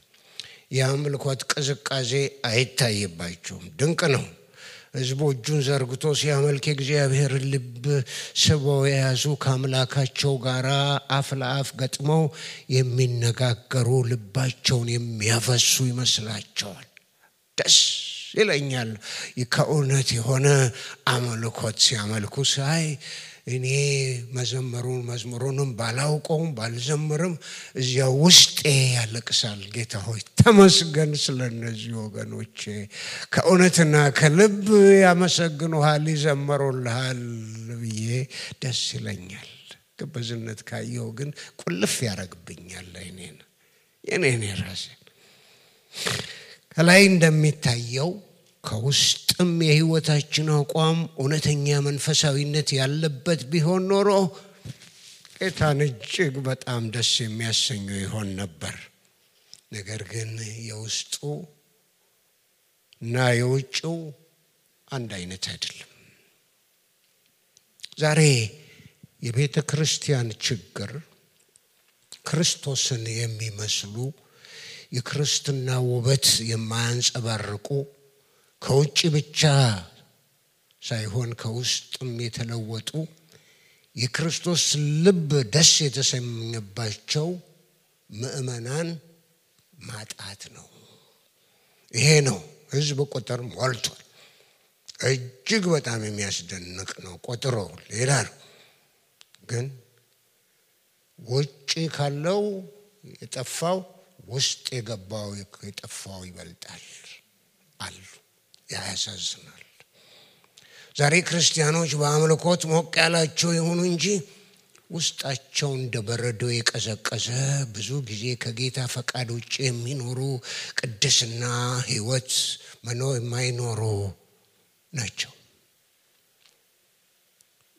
[SPEAKER 1] የአምልኮት ቅዝቃዜ አይታይባቸውም። ድንቅ ነው። ህዝቡ እጁን ዘርግቶ ሲያመልክ እግዚአብሔር ልብ ስበው የያዙ ከአምላካቸው ጋር አፍ ለአፍ ገጥመው የሚነጋገሩ ልባቸውን የሚያፈሱ ይመስላቸዋል። ደስ ይለኛል ከእውነት የሆነ አምልኮት ሲያመልኩ ሳይ። እኔ መዝሙሩንም ባላውቀውም ባልዘምርም እዚያ ውስጤ ያለቅሳል። ጌታ ሆይ ተመስገን ስለነዚህ ወገኖቼ። ከእውነትና ከልብ ያመሰግኑሃል ይዘምሩልሃል ብዬ ደስ ይለኛል። ግብዝነት ካየው ግን ቁልፍ ያረግብኛል የኔን ራሴን። ከላይ እንደሚታየው ከውስጥም የህይወታችን አቋም እውነተኛ መንፈሳዊነት ያለበት ቢሆን ኖሮ ጌታን እጅግ በጣም ደስ የሚያሰኘው ይሆን ነበር። ነገር ግን የውስጡ እና የውጭው አንድ አይነት አይደለም። ዛሬ የቤተ ክርስቲያን ችግር ክርስቶስን የሚመስሉ የክርስትና ውበት የማያንጸባርቁ ከውጭ ብቻ ሳይሆን ከውስጥም የተለወጡ የክርስቶስ ልብ ደስ የተሰኘባቸው ምእመናን ማጣት ነው። ይሄ ነው። ህዝብ ቁጥር ሞልቷል። እጅግ በጣም የሚያስደንቅ ነው። ቁጥሩ ሌላ ነው። ግን ውጭ ካለው የጠፋው ውስጥ የገባው የጠፋው ይበልጣል አሉ። ያሳዝናል። ዛሬ ክርስቲያኖች በአምልኮት ሞቅ ያላቸው ይሁኑ እንጂ ውስጣቸው እንደ በረዶ የቀዘቀዘ ብዙ ጊዜ ከጌታ ፈቃድ ውጭ የሚኖሩ ቅድስና ህይወት የማይኖሩ ናቸው።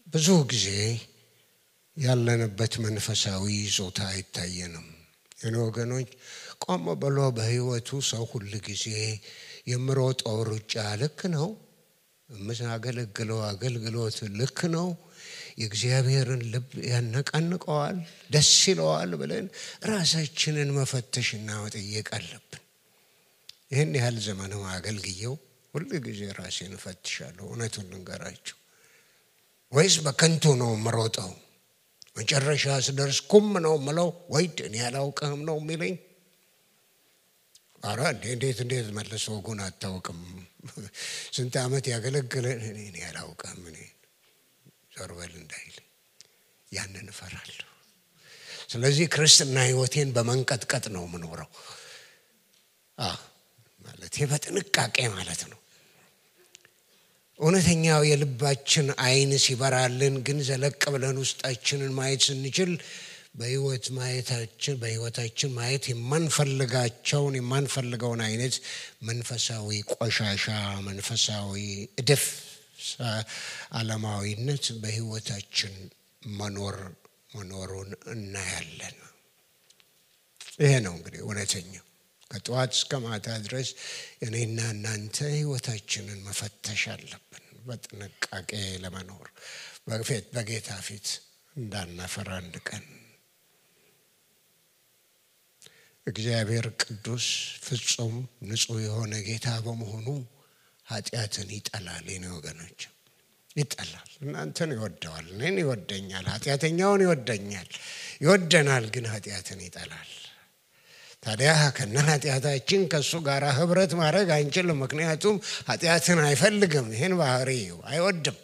[SPEAKER 1] ብዙ ጊዜ ያለንበት መንፈሳዊ ይዞታ አይታየንም። ወገኖች ቆም ብሎ በህይወቱ ሰው ሁሉ ጊዜ የምሮጠው ሩጫ ልክ ነው፣ የምናገለግለው አገልግሎት ልክ ነው፣ የእግዚአብሔርን ልብ ያነቃንቀዋል፣ ደስ ይለዋል ብለን ራሳችንን መፈተሽና መጠየቅ አለብን። ይህን ያህል ዘመን አገልግየው ሁሉ ጊዜ ራሴን እፈትሻለሁ። እውነቱን ልንገራችሁ፣ ወይስ በከንቱ ነው የምሮጠው? መጨረሻ ስደርስ ኩም ነው የምለው ወይ እኔ ያላውቅህም ነው የሚለኝ? ኧረ እንዴት መልሶ ጉን አታውቅም፣ ስንት ዓመት ያገለግለ እኔ ያላውቅህም እኔ ዞር በል እንዳይል ያንን እፈራለሁ። ስለዚህ ክርስትና ህይወቴን በመንቀጥቀጥ ነው የምኖረው። ማለት በጥንቃቄ ማለት ነው። እውነተኛው የልባችን አይን ሲበራልን ግን ዘለቅ ብለን ውስጣችንን ማየት ስንችል በህይወታችን ማየት የማንፈልገውን አይነት መንፈሳዊ ቆሻሻ መንፈሳዊ እድፍ ዓለማዊነት በህይወታችን መኖሩን እናያለን። ይሄ ነው እንግዲህ እውነተኛው ከጧት እስከ ማታ ድረስ እኔና እናንተ ህይወታችንን መፈተሽ አለብን በጥንቃቄ ለመኖር በጌታ ፊት እንዳናፈራ አንድ ቀን። እግዚአብሔር ቅዱስ ፍጹም ንጹህ የሆነ ጌታ በመሆኑ ኃጢአትን ይጠላል። የኔ ወገኖች ይጠላል። እናንተን ይወደዋል፣ እኔን ይወደኛል፣ ኃጢአተኛውን ይወደናል፣ ግን ኃጢአትን ይጠላል። ታዲያ ከኃጢአታችን ከሱ ጋር ህብረት ማድረግ አንችልም። ምክንያቱም ኃጢአትን አይፈልግም፣ ይሄን ባህሪው አይወድም።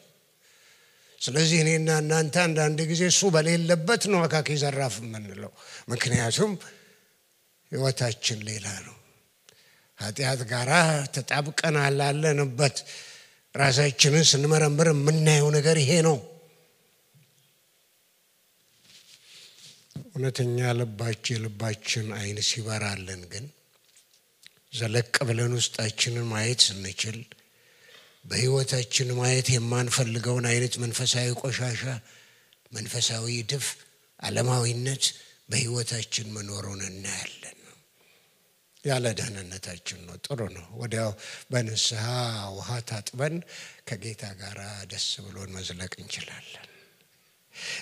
[SPEAKER 1] ስለዚህ እኔና እናንተ አንዳንድ ጊዜ እሱ በሌለበት ነው አካኪ ዘራፍ የምንለው። ምክንያቱም ህይወታችን ሌላ ነው። ኃጢአት ጋር ተጣብቀናል አለንበት። ራሳችንን ስንመረምር የምናየው ነገር ይሄ ነው። እውነተኛ ልባችን አይን ሲበራልን ግን ዘለቅ ብለን ውስጣችንን ማየት ስንችል በህይወታችን ማየት የማንፈልገውን አይነት መንፈሳዊ ቆሻሻ መንፈሳዊ ድፍ ዓለማዊነት በህይወታችን መኖሩን እናያለን። ያለ ደህንነታችን ነው። ጥሩ ነው። ወዲያው በንስሐ ውሃ ታጥበን ከጌታ ጋር ደስ ብሎን መዝለቅ እንችላለን።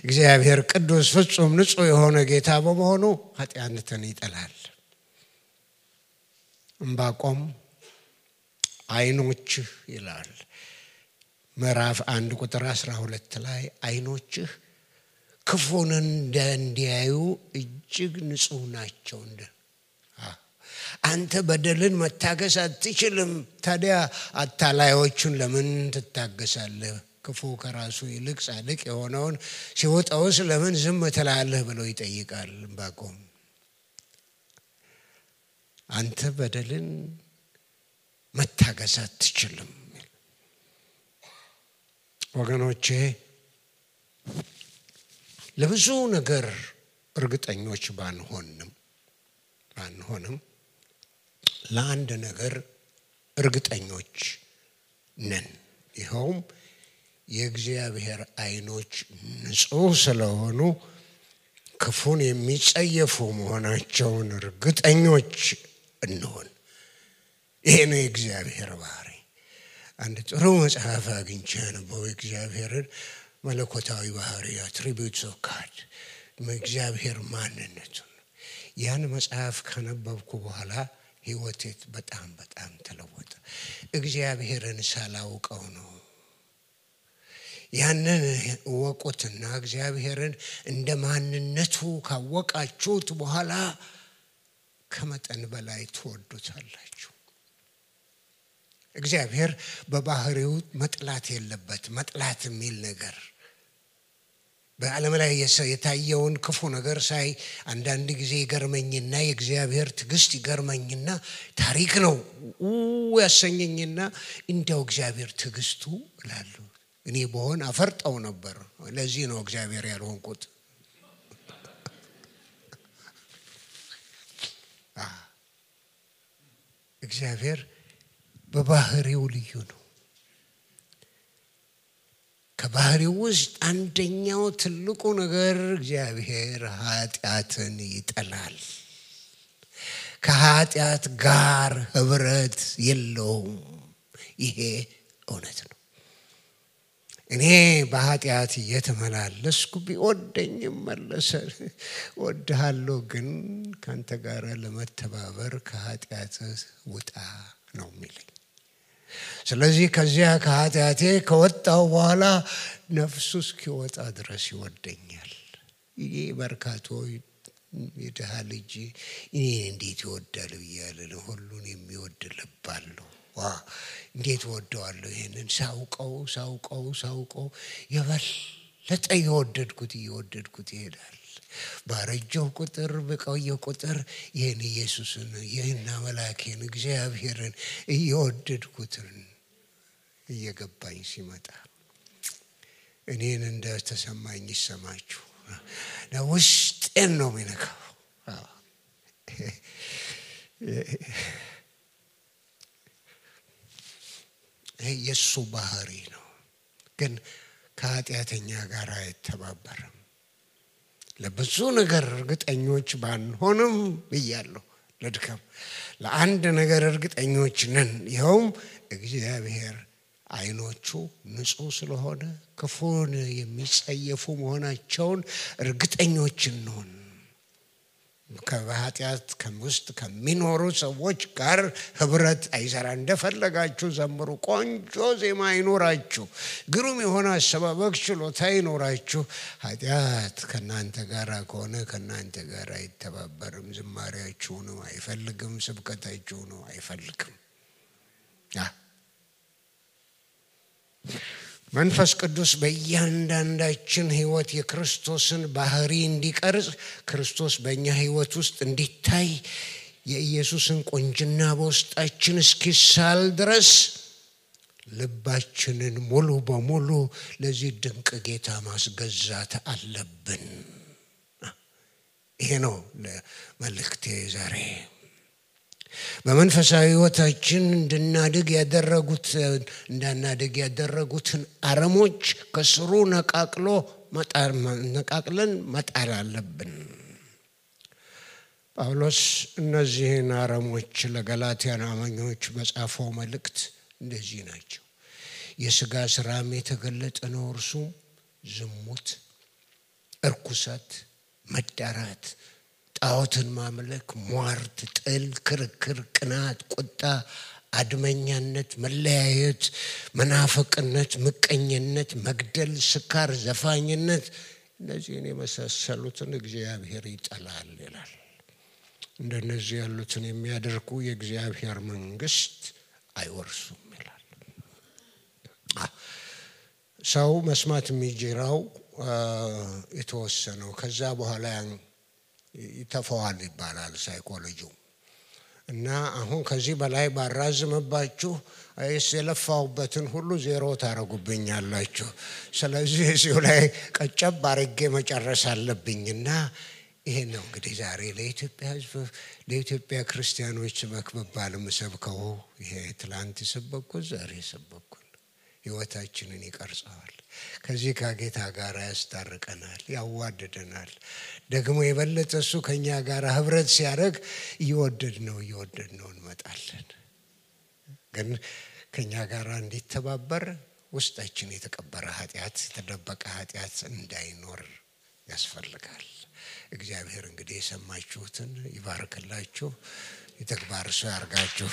[SPEAKER 1] እግዚአብሔር ቅዱስ ፍጹም ንጹህ የሆነ ጌታ በመሆኑ ኃጢአትን ይጠላል። ዕንባቆም አይኖችህ ይላል ምዕራፍ 1 ቁጥር 12 ላይ አይኖችህ ክፉን እንዲያዩ እጅግ ንጹህ ናቸው። አንተ በደልን መታገስ አትችልም። ታዲያ አታላዮቹን ለምን ትታገሳለህ? ክፉ ከራሱ ይልቅ ጻድቅ የሆነውን ሲወጣውስ ለምን ዝም ትላለህ ብሎ ይጠይቃል ዕንባቆም። አንተ በደልን መታገስ አትችልም። ወገኖቼ ለብዙ ነገር እርግጠኞች ባንሆንም ለአንድ ነገር እርግጠኞች ነን። ይኸውም የእግዚአብሔር አይኖች ንጹህ ስለሆኑ ክፉን የሚጸየፉ መሆናቸውን እርግጠኞች እንሆን። ይሄ ነው የእግዚአብሔር ባህሪ። አንድ ጥሩ መጽሐፍ አግኝቼ ነበር የእግዚአብሔርን መለኮታዊ ባህሪ attributes of God እግዚአብሔር ማንነቱን። ያን መጽሐፍ ከነበብኩ በኋላ ህይወቴ በጣም ተለወጠ። እግዚአብሔርን ሳላውቀው ነው። ያንን ወቁትና እግዚአብሔርን እንደ ማንነቱ ካወቃችሁት በኋላ ከመጠን በላይ ትወዱታላችሁ። እግዚአብሔር በባህሪው መጥላት የለበት። መጥላት የሚል ነገር በዓለም ላይ የታየውን ክፉ ነገር ሳይ አንዳንድ ጊዜ ይገርመኝና የእግዚአብሔር ትዕግስት ይገርመኝና ታሪክ ነው ያሰኘኝና እንደው እግዚአብሔር ትዕግስቱ እላለሁ። እኔ በሆን አፈርጠው ነበር። ለዚህ ነው እግዚአብሔር ያልሆንኩት። እግዚአብሔር በባህሪው ልዩ ነው። ከባህሪው ውስጥ አንደኛው ትልቁ ነገር እግዚአብሔር ኃጢአትን ይጠላል። ከኃጢአት ጋር ህብረት የለውም። ይሄ እውነት ነው። እኔ በኃጢአት እየተመላለስኩ ቢወደኝም መለሰ ወድሃለሁ፣ ግን ካንተ ጋር ለመተባበር ከኃጢአት ውጣ ነው የሚለኝ። ስለዚህ ከዚያ ከኃጢአቴ ከወጣው በኋላ ነፍሱ እስኪወጣ ድረስ ይወደኛል። ይሄ በርካቶ የድሃ ልጅ እኔ እንዴት ይወዳል ብያለሁ። ሁሉን የሚወድ ልብ አለው። እንዴት ወደዋለሁ። ይሄንን ሳውቀው የበለጠ እየወደድኩት ይሄዳል። ባረጀው ቁጥር በቆየው ቁጥር ይህን ኢየሱስን ይህን አምላኬን እግዚአብሔርን እየወደድኩት እየገባኝ ሲመጣ እኔን እንደተሰማኝ ይሰማችሁ። ውስጤ ውስጤን ነው የሚነካው። የሱ ባህሪ ነው። ግን ከኃጢአተኛ ጋር አይተባበርም። ለብዙ ነገር እርግጠኞች ባንሆንም ብያለሁ፣ ለድካም ለአንድ ነገር እርግጠኞች ነን። ይኸውም እግዚአብሔር አይኖቹ ንጹህ ስለሆነ ክፉን የሚጸየፉ መሆናቸውን እርግጠኞች ነን። ከኃጢአት ውስጥ ከሚኖሩ ሰዎች ጋር ህብረት አይሰራ። እንደፈለጋችሁ ዘምሩ፣ ቆንጆ ዜማ ይኖራችሁ፣ ግሩም የሆነ አሰባበክ ችሎታ ይኖራችሁ፣ ኃጢአት ከናንተ ጋር ከሆነ ከናንተ ጋር አይተባበርም። ዝማሬያችሁ ነው አይፈልግም፣ ስብከታችሁ ነው አይፈልግም። መንፈስ ቅዱስ በእያንዳንዳችን ህይወት የክርስቶስን ባህሪ እንዲቀርጽ፣ ክርስቶስ በእኛ ህይወት ውስጥ እንዲታይ፣ የኢየሱስን ቁንጅና በውስጣችን እስኪሳል ድረስ ልባችንን ሙሉ በሙሉ ለዚህ ድንቅ ጌታ ማስገዛት አለብን። ይሄ ነው መልእክቴ ዛሬ። በመንፈሳዊ ህይወታችን እንዳናድግ ያደረጉትን አረሞች ከስሩ ነቃቅለን መጣል አለብን። ጳውሎስ እነዚህን አረሞች ለገላትያን አማኞች በጻፈው መልእክት እንደዚህ ናቸው። የሥጋ ሥራም የተገለጠ ነው፣ እርሱም ዝሙት፣ እርኩሰት፣ መዳራት፣ ጣዖትን ማምለክ፣ ሟርት፣ ጥል፣ ክርክር፣ ቅናት፣ ቁጣ፣ አድመኛነት፣ መለያየት፣ መናፍቅነት፣ ምቀኝነት፣ መግደል፣ ስካር፣ ዘፋኝነት፣ እነዚህን የመሳሰሉትን እግዚአብሔር ይጠላል ይላል። እንደነዚህ ያሉትን የሚያደርጉ የእግዚአብሔር መንግስት አይወርሱም ይላል። ሰው መስማት የሚጀራው የተወሰነው ከዛ በኋላ ይተፈዋል ይባላል ሳይኮሎጂው። እና አሁን ከዚህ በላይ ባራዝምባችሁ የለፋሁበትን ሁሉ ዜሮ ታረጉብኛላችሁ። ስለዚህ እዚሁ ላይ ቀጨብ አድርጌ መጨረስ አለብኝና ይሄ ነው እንግዲህ ዛሬ ለኢትዮጵያ ሕዝብ ለኢትዮጵያ ክርስቲያኖች መክበባል ምሰብከው። ይሄ ትላንት ሰበኩት ዛሬ ሰበኩት ህይወታችንን ይቀርጻል። ከዚህ ከጌታ ጋር ያስታርቀናል፣ ያዋደደናል። ደግሞ የበለጠ እሱ ከኛ ጋር ህብረት ሲያደርግ እየወደድነው እንመጣለን። ግን ከኛ ጋር እንዲተባበር ውስጣችን የተቀበረ ኃጢአት፣ የተደበቀ ኃጢአት እንዳይኖር ያስፈልጋል። እግዚአብሔር እንግዲህ የሰማችሁትን ይባርክላችሁ፣ የተግባር ሰው ያርጋችሁ።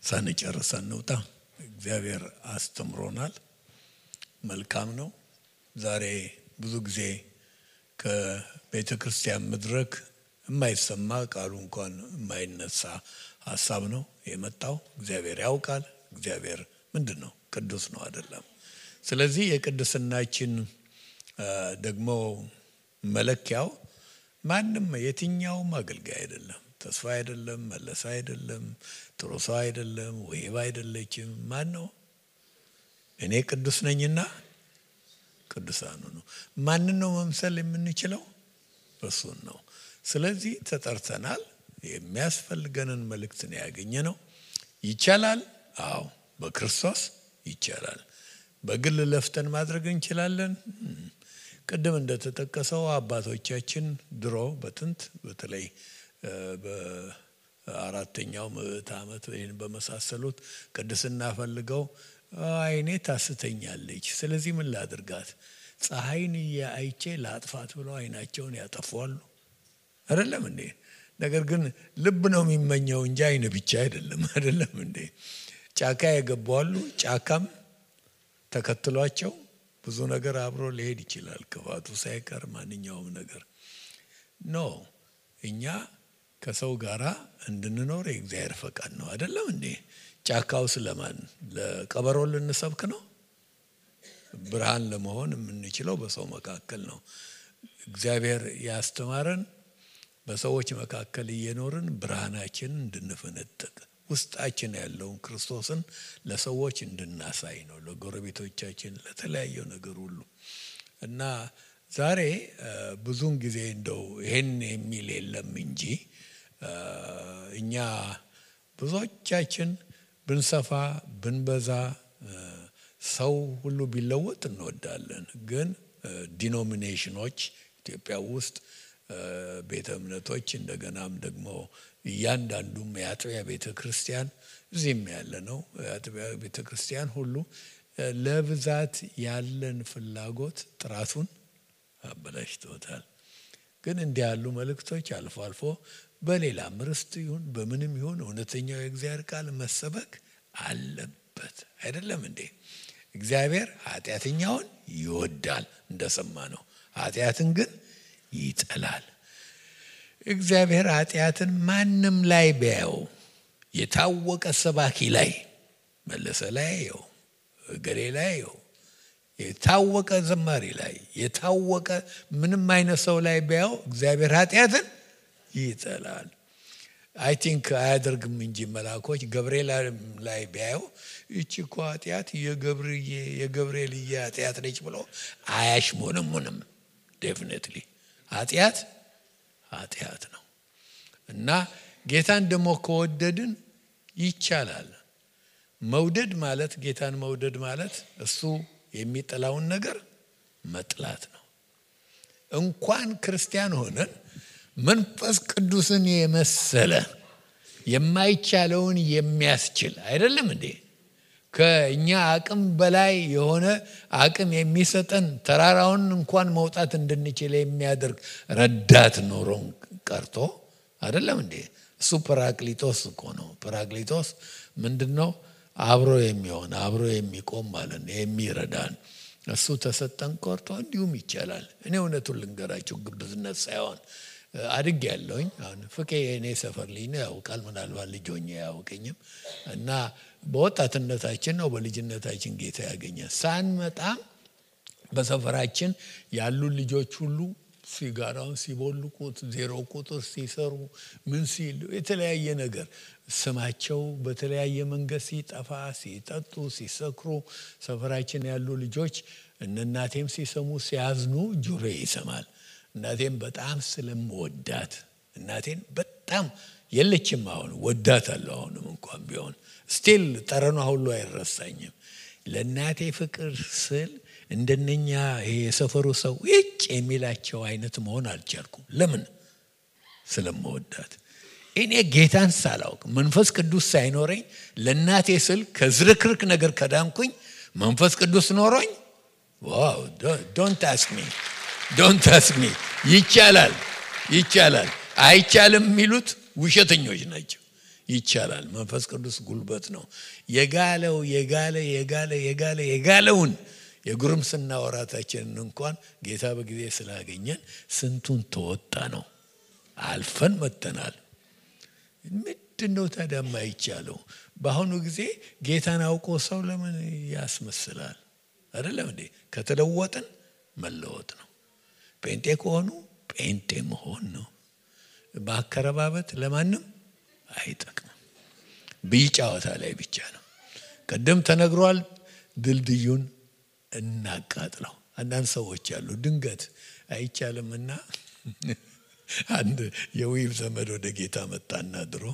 [SPEAKER 2] ሳንጨርስ እንውጣ። እግዚአብሔር አስተምሮናል፣ መልካም ነው። ዛሬ ብዙ ጊዜ ከቤተ ክርስቲያን መድረክ የማይሰማ ቃሉ እንኳን የማይነሳ ሐሳብ ነው የመጣው። እግዚአብሔር ያውቃል። እግዚአብሔር ምንድነው? ቅዱስ ነው አይደለም? ስለዚህ የቅድስናችን ደግሞ መለኪያው ማንም የትኛውም አገልጋይ አይደለም፣ ተስፋ አይደለም፣ መለሳ አይደለም፣ ጥሩ ሰው አይደለም፣ ወይባ አይደለችም። ማን ነው? እኔ ቅዱስ ነኝና ቅዱሳኑ ነው። ማንን ነው መምሰል የምንችለው? እሱን ነው። ስለዚህ ተጠርተናል። የሚያስፈልገንን መልእክት ነው ያገኘነው። ይቻላል። አዎ በክርስቶስ ይቻላል። በግል ለፍተን ማድረግ እንችላለን። ቅድም እንደተጠቀሰው አባቶቻችን ድሮ በጥንት በተለይ በአራተኛው ምዕተ ዓመት ይህን በመሳሰሉት ቅድስና ፈልገው አይኔ ታስተኛለች፣ ስለዚህ ምን ላድርጋት፣ ፀሐይን አይቼ ላጥፋት ብለው አይናቸውን ያጠፋሉ። አይደለም እንዴ? ነገር ግን ልብ ነው የሚመኘው እንጂ አይን ብቻ አይደለም። አይደለም እንዴ? ጫካ የገባሉ፣ ጫካም ተከትሏቸው ብዙ ነገር አብሮ ሊሄድ ይችላል፣ ክፋቱ ሳይቀር ማንኛውም ነገር ነው። እኛ ከሰው ጋራ እንድንኖር የእግዚአብሔር ፈቃድ ነው። አይደለም እንዴ? ጫካው ስለማን ለቀበሮ ልንሰብክ ነው? ብርሃን ለመሆን የምንችለው በሰው መካከል ነው። እግዚአብሔር ያስተማረን በሰዎች መካከል እየኖርን ብርሃናችንን እንድንፈነጥቅ ውስጣችን ያለውን ክርስቶስን ለሰዎች እንድናሳይ ነው። ለጎረቤቶቻችን፣ ለተለያየ ነገር ሁሉ እና ዛሬ ብዙን ጊዜ እንደው ይሄን የሚል የለም እንጂ እኛ ብዙዎቻችን ብንሰፋ ብንበዛ ሰው ሁሉ ቢለወጥ እንወዳለን። ግን ዲኖሚኔሽኖች ኢትዮጵያ ውስጥ ቤተ እምነቶች እንደገናም ደግሞ እያንዳንዱም የአጥቢያ ቤተ ክርስቲያን እዚህም ያለ ነው የአጥቢያ ቤተ ክርስቲያን ሁሉ ለብዛት ያለን ፍላጎት ጥራቱን አበላሽቶታል። ግን እንዲህ ያሉ መልእክቶች አልፎ አልፎ በሌላም ርስት ይሁን በምንም ይሁን እውነተኛው የእግዚአብሔር ቃል መሰበክ አለበት። አይደለም እንዴ? እግዚአብሔር ኃጢአተኛውን ይወዳል እንደሰማ ነው፣ ኃጢአትን ግን ይጠላል። እግዚአብሔር ኃጢአትን ማንም ላይ ቢያየው የታወቀ ሰባኪ ላይ መለሰ ላይ ያየው ገሌ ላይ ያየው የታወቀ ዘማሪ ላይ የታወቀ ምንም አይነት ሰው ላይ ቢያየው እግዚአብሔር ኃጢአትን ይጠላል። አይ ቲንክ አያደርግም እንጂ መላእክቶች ገብርኤል ላይ ቢያየው እቺ እኮ ኃጢአት የገብርኤል ኃጢአት ነች ብሎ አያሽሞነሙንም። ዴፊኒትሊ ኃጢአት ነው እና ጌታን ደግሞ ከወደድን ይቻላል። መውደድ ማለት ጌታን መውደድ ማለት እሱ የሚጠላውን ነገር መጥላት ነው። እንኳን ክርስቲያን ሆነን መንፈስ ቅዱስን የመሰለ የማይቻለውን የሚያስችል አይደለም እንዴ? ከኛ አቅም በላይ የሆነ አቅም የሚሰጠን ተራራውን እንኳን መውጣት እንድንችል የሚያደርግ ረዳት ኖሮን ቀርቶ አይደለም እንዴ? እሱ ጰራቅሊጦስ እኮ ነው። ጰራቅሊጦስ ምንድነው? አብሮ የሚሆን አብሮ የሚቆም ማለት ነው፣ የሚረዳን እሱ ተሰጠን ቀርቶ እንዲሁም ይቻላል። እኔ እውነቱን ልንገራችሁ ግብዝነት ሳይሆን አድግ ያለውኝ አሁን ፍቄ የኔ ሰፈር ልጅ ነው፣ ያውቃል። ምናልባት ልጅ ሆኜ ያውቀኝም እና በወጣትነታችን ነው በልጅነታችን ጌታ ያገኘን። ሳንመጣም በሰፈራችን ያሉ ልጆች ሁሉ ሲጋራውን ሲቦልቁት፣ ዜሮ ቁጥር ሲሰሩ፣ ምን ሲሉ የተለያየ ነገር ስማቸው በተለያየ መንገድ ሲጠፋ፣ ሲጠጡ፣ ሲሰክሩ ሰፈራችን ያሉ ልጆች እናቴም ሲሰሙ ሲያዝኑ ጆሮ ይሰማል። እናቴም በጣም ስለምወዳት እናቴን በጣም የለችም፣ አሁን ወዳታለሁ። አሁንም እንኳን ቢሆን ስቲል ጠረኗ ሁሉ አይረሳኝም። ለእናቴ ፍቅር ስል እንደነኛ የሰፈሩ ሰው እጭ የሚላቸው አይነት መሆን አልቻልኩም። ለምን? ስለምወዳት። እኔ ጌታን ሳላውቅ መንፈስ ቅዱስ ሳይኖረኝ ለእናቴ ስል ከዝርክርክ ነገር ከዳንኩኝ መንፈስ ቅዱስ ኖሮኝ ዋው ዶንት አስክ ሚ ይቻላል። አይቻልም የሚሉት ውሸተኞች ናቸው። ይቻላል። መንፈስ ቅዱስ ጉልበት ነው። የጋለውን የጉርምስና ወራታችንን እንኳን ጌታ በጊዜ ስላገኘን ስንቱን ተወጣ ነው፣ አልፈን መጥተናል። ምንድነው ታዲያ የማይቻለው? በአሁኑ ጊዜ ጌታን አውቆ ሰው ለምን ያስመስላል? አይደለም እንዴ? ከተለወጥን መለወጥ ነው። ጴንጤ ከሆኑ ጴንጤ መሆን ነው። ማከረባበት ለማንም አይጠቅምም። ቢጫወታ ላይ ብቻ ነው። ቀደም ተነግሯል። ድልድዩን እናቃጥለው። አንዳንድ ሰዎች ያሉ ድንገት አይቻልምና አንድ የዊብ ዘመድ ወደ ጌታ መጣና ድሮ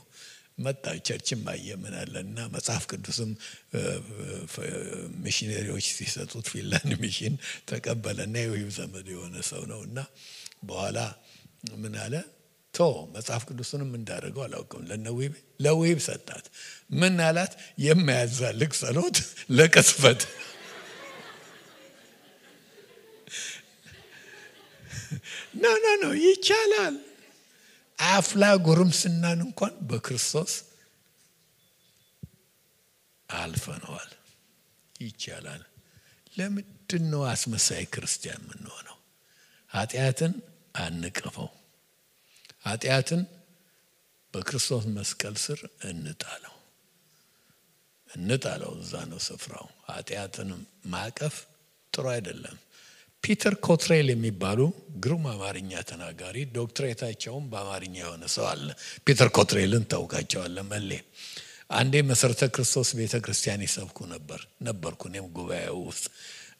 [SPEAKER 2] መጣ ቸርችም አየምናለና መጽሐፍ ቅዱስም ሚሽነሪዎች ሲሰጡት ፊንላንድ ሚሽን ተቀበለና የዊብ ዘመድ የሆነ ሰው ነውና በኋላ ምን አለ? መጽሐፍ ቅዱስንም እንዳደረገው አላውቅም። ለዊብ ሰጣት። ምን አላት? የማያዛልቅ ጸሎት ለቅስፈት። ኖ ይቻላል። አፍላ ጉርምስናን እንኳን በክርስቶስ አልፈነዋል። ይቻላል። ለምንድን ነው አስመሳይ ክርስቲያን የምንሆነው? ኃጢአትን አንቀፈው። ኃጢአትን በክርስቶስ መስቀል ስር እንጣለው። እዛ ነው ስፍራው። ኃጢአትን ማቀፍ ጥሩ አይደለም። ፒተር ኮትሬል የሚባሉ ግሩም አማርኛ ተናጋሪ ዶክትሬታቸውም በአማርኛ የሆነ ሰው አለ። ፒተር ኮትሬልን ታውቃቸዋለህ መሌ? አንዴ መሰረተ ክርስቶስ ቤተክርስቲያን ይሰብኩ ነበርኩ እኔም ጉባኤው ውስጥ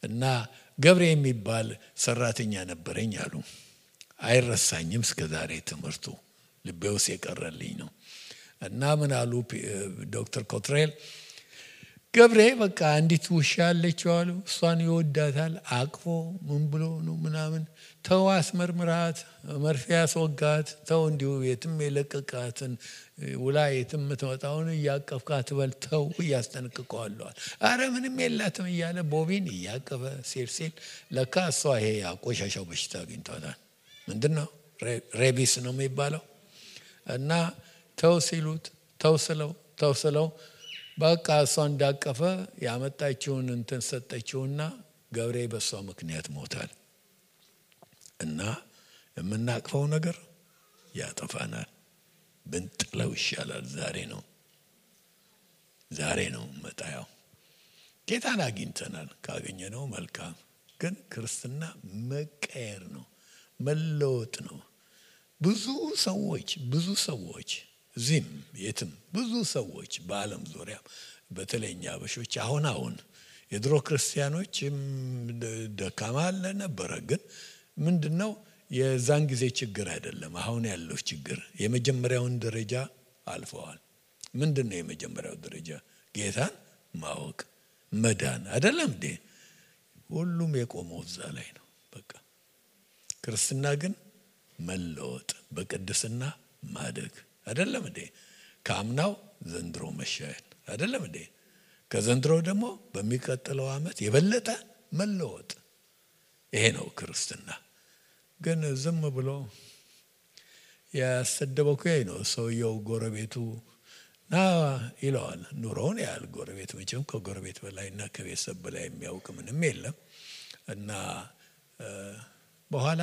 [SPEAKER 2] እና ገብሬ የሚባል ሰራተኛ ነበረኝ አሉ። አይረሳኝም እስከዛሬ ትምህርቱ ልቤ ውስጥ የቀረልኝ ነው። እና ምን አሉ ዶክተር ኮትሬል፣ ገብሬ በቃ አንዲት ውሻ አለችው አሉ። እሷን ይወዳታል። አቅፎ ምን ብሎ ነው ምናምን ተው አስመርምራት፣ መርፌ ያስወጋት፣ ተው እንዲሁ የትም የለቀቃትን ውላ የትም የምትመጣውን እያቀፍካት በል ተው እያስጠነቅቀዋለዋል። አረ ምንም የላትም እያለ ቦቢን እያቀበ ሲል ለካ እሷ ይሄ ያቆሻሻው በሽታ አግኝቷታል። ምንድን ነው ሬቢስ ነው የሚባለው። እና ተው ሲሉት ተው ስለው በቃ እሷ እንዳቀፈ ያመጣችውን እንትን ሰጠችውና ገብሬ በሷ ምክንያት ሞታል። እና የምናቅፈው ነገር ያጠፋናል። ብንጥለው ይሻላል። ዛሬ ነው መጣያው። ጌታን አግኝተናል። ካገኘነው መልካም። ግን ክርስትና መቀየር ነው፣ መለወጥ ነው። ብዙ ሰዎች እዚህም የትም ብዙ ሰዎች በዓለም ዙሪያ በተለይኛ አበሾች አሁን የድሮ ክርስቲያኖች ደካማ ነበረ። ግን ምንድነው የዛን ጊዜ ችግር አይደለም አሁን ያለው ችግር። የመጀመሪያውን ደረጃ አልፈዋል። ምንድነው የመጀመሪያው ደረጃ? ጌታን ማወቅ መዳን አይደለም እንዴ? ሁሉም የቆመው እዛ ላይ ነው። በቃ ክርስትና ግን መለወጥ፣ በቅድስና ማደግ አይደለም እንዴ? ካምናው ዘንድሮ መሻሻል አይደለም እንዴ? ከዘንድሮ ደግሞ በሚቀጥለው ዓመት የበለጠ መለወጥ። ይሄ ነው ክርስትና። ግን ዝም ብሎ ያሰደበው ነው ሰውየው። ጎረቤቱ ና ይለዋል። ኑሮውን ያህል ጎረቤት መቼም ከጎረቤት በላይና ከቤተሰብ በላይ የሚያውቅ ምንም የለም። እና በኋላ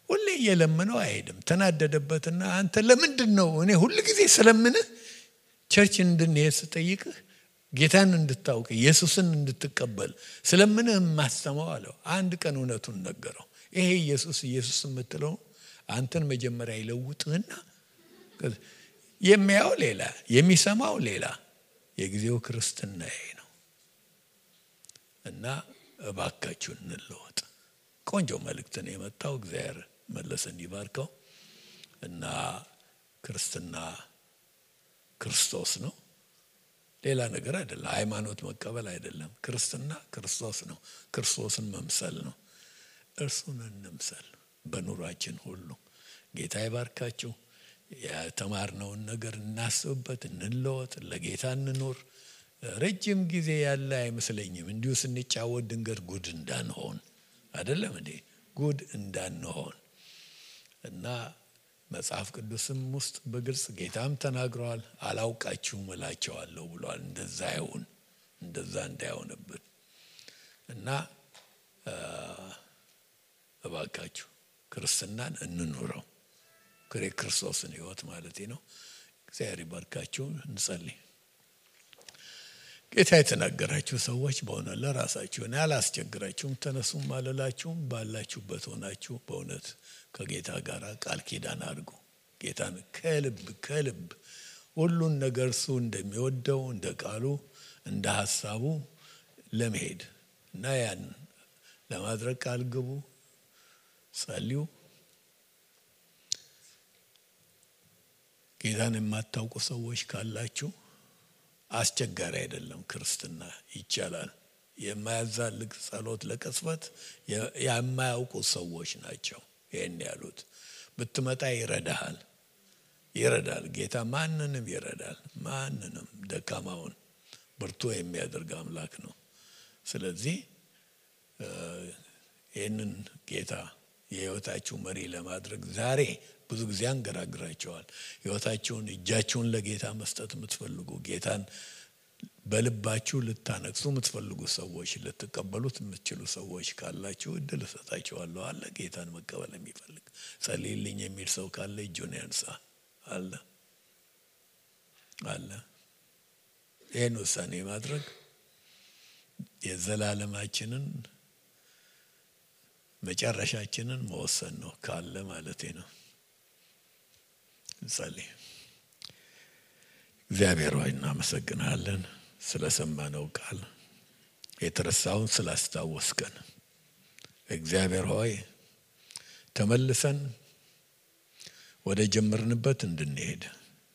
[SPEAKER 2] ሁሌ እየለመነው አይሄድም። ተናደደበትና አንተ ለምንድን ነው እኔ ሁሉ ጊዜ ስለምንህ ቸርች እንድንሄድ ስጠይቅህ ጌታን እንድታውቅ ኢየሱስን እንድትቀበል ስለምንህ ማስተማው አለው። አንድ ቀን እውነቱን ነገረው። ይሄ ኢየሱስ የምትለው አንተን መጀመሪያ ይለውጥህና የሚያው ሌላ የሚሰማው ሌላ። የጊዜው ክርስትና ይሄ ነው። እና እባካችሁ እንለወጥ። ቆንጆ መልእክት ነው የመጣው። እግዚአብሔር መለሰን ይባርከው። እና ክርስትና ክርስቶስ ነው፣ ሌላ ነገር አይደለም። ሃይማኖት መቀበል አይደለም። ክርስትና ክርስቶስ ነው። ክርስቶስን መምሰል ነው። እርሱን እንምሰል በኑሯችን ሁሉ። ጌታ ይባርካችሁ። የተማርነውን ነገር እናስብበት፣ እንለወጥ፣ ለጌታ እንኖር። ረጅም ጊዜ ያለ አይመስለኝም። እንዲሁ ስንጫወት ድንገት ጉድ እንዳንሆን አይደለም እንዴ? ጉድ እንዳንሆን እና መጽሐፍ ቅዱስም ውስጥ በግልጽ ጌታም ተናግሯል። አላውቃችሁም እላቸዋለሁ ብሏል። እንደዛ እንዳይሆንብን እና እባካችሁ ክርስትናን እንኑረው። ክርስቶስን ሕይወት ማለት ነው። እግዚአብሔር ይባርካችሁ። እንጸልይ። ጌታ የተናገራችሁ ሰዎች በሆነ ለራሳችሁ እኔ አላስቸግራችሁም፣ ተነሱም አልላችሁም። ባላችሁበት ሆናችሁ በእውነት ከጌታ ጋር ቃል ኪዳን አድርጉ። ጌታን ከልብ ሁሉን ነገር እሱ እንደሚወደው እንደ ቃሉ እንደ ሐሳቡ ለመሄድ እና ያን ለማድረግ ቃል ግቡ፣ ጸልዩ። ጌታን የማታውቁ ሰዎች ካላችሁ አስቸጋሪ አይደለም። ክርስትና ይቻላል። የማያዛልቅ ጸሎት ለቅጽበት የማያውቁ ሰዎች ናቸው ይሄን ያሉት። ብትመጣ ይረዳል። ጌታ ማንንም ይረዳል። ማንንም ደካማውን ብርቱ የሚያደርግ አምላክ ነው። ስለዚህ ይህንን ጌታ የህይወታችሁ መሪ ለማድረግ ዛሬ ብዙ ጊዜ አንገራግራቸዋል። ህይወታችሁን እጃችሁን ለጌታ መስጠት የምትፈልጉ ጌታን በልባችሁ ልታነግሱ የምትፈልጉ ሰዎች፣ ልትቀበሉት የምትችሉ ሰዎች ካላችሁ እድል እሰጣችኋለሁ። አለ ጌታን መቀበል የሚፈልግ ጸልይልኝ የሚል ሰው ካለ እጁን ያንሳ። አለ ይህን ውሳኔ ማድረግ የዘላለማችንን መጨረሻችንን መወሰን ነው ካለ ማለቴ ነው። እንጸልይ። እግዚአብሔር ሆይ እናመሰግናለን ስለሰማነው ቃል፣ የተረሳውን ስላስታወስከን። እግዚአብሔር ሆይ ተመልሰን ወደ ጀመርንበት እንድንሄድ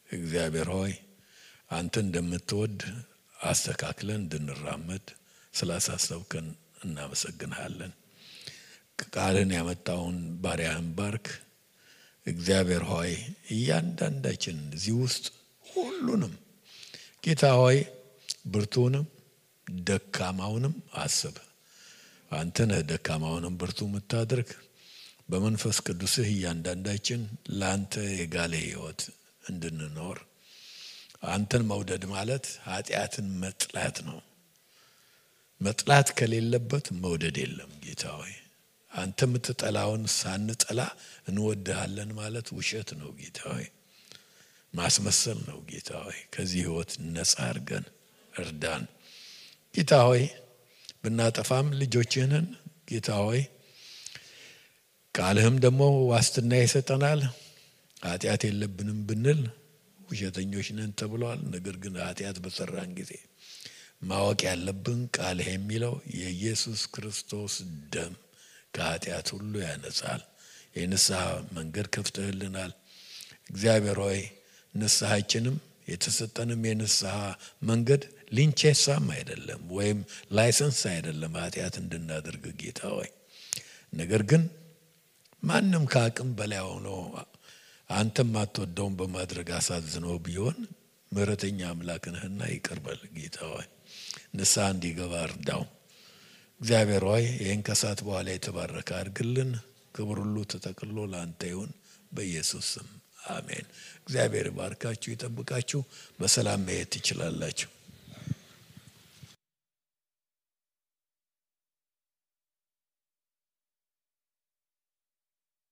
[SPEAKER 2] እግዚአብሔር ሆይ አንተ እንደምትወድ አስተካክለን እንድንራመድ ስላሳሰብከን እናመሰግናለን። ቃልን ያመጣውን ባሪያህን ባርክ እግዚአብሔር ሆይ። እያንዳንዳችን እዚህ ውስጥ ሁሉንም ጌታ ሆይ ብርቱንም ደካማውንም አስብ። አንተ ነህ ደካማውንም ብርቱ የምታደርግ። በመንፈስ ቅዱስህ እያንዳንዳችን ለአንተ የጋለ ሕይወት እንድንኖር። አንተን መውደድ ማለት ኃጢአትን መጥላት ነው። መጥላት ከሌለበት መውደድ የለም። ጌታ ሆይ አንተ የምትጠላውን ሳንጠላ እንወድሃለን ማለት ውሸት ነው። ጌታ ሆይ ማስመሰል ነው። ጌታ ሆይ ከዚህ ሕይወት ነፃ አድርገን እርዳን። ጌታ ሆይ ብናጠፋም ልጆችህን ጌታ ሆይ ቃልህም ደግሞ ዋስትና ይሰጠናል። ኃጢአት የለብንም ብንል ውሸተኞች ነን ተብሏል። ነገር ግን ኃጢአት በሰራን ጊዜ ማወቅ ያለብን ቃልህ የሚለው የኢየሱስ ክርስቶስ ደም ከኃጢአት ሁሉ ያነጻል። የንስሐ መንገድ ከፍተህልናል። እግዚአብሔር ሆይ ንስሐችንም የተሰጠንም የንስሐ መንገድ ሊንቼሳም አይደለም ወይም ላይሰንስ አይደለም ኃጢአት እንድናደርግ ጌታ ሆይ። ነገር ግን ማንም ከአቅም በላይ ሆኖ አንተም አትወደውን በማድረግ አሳዝኖ ቢሆን ምሕረተኛ አምላክ ነህና ይቅር በል ጌታ ሆይ። ንስሐ እንዲገባ እርዳው። እግዚአብሔር ሆይ ይህን ከሰዓት በኋላ የተባረከ አድርግልን። ክብር ሁሉ ተጠቅሎ ለአንተ ይሁን በኢየሱስ ስም አሜን። እግዚአብሔር ባርካችሁ ይጠብቃችሁ። በሰላም መሄድ ትችላላችሁ።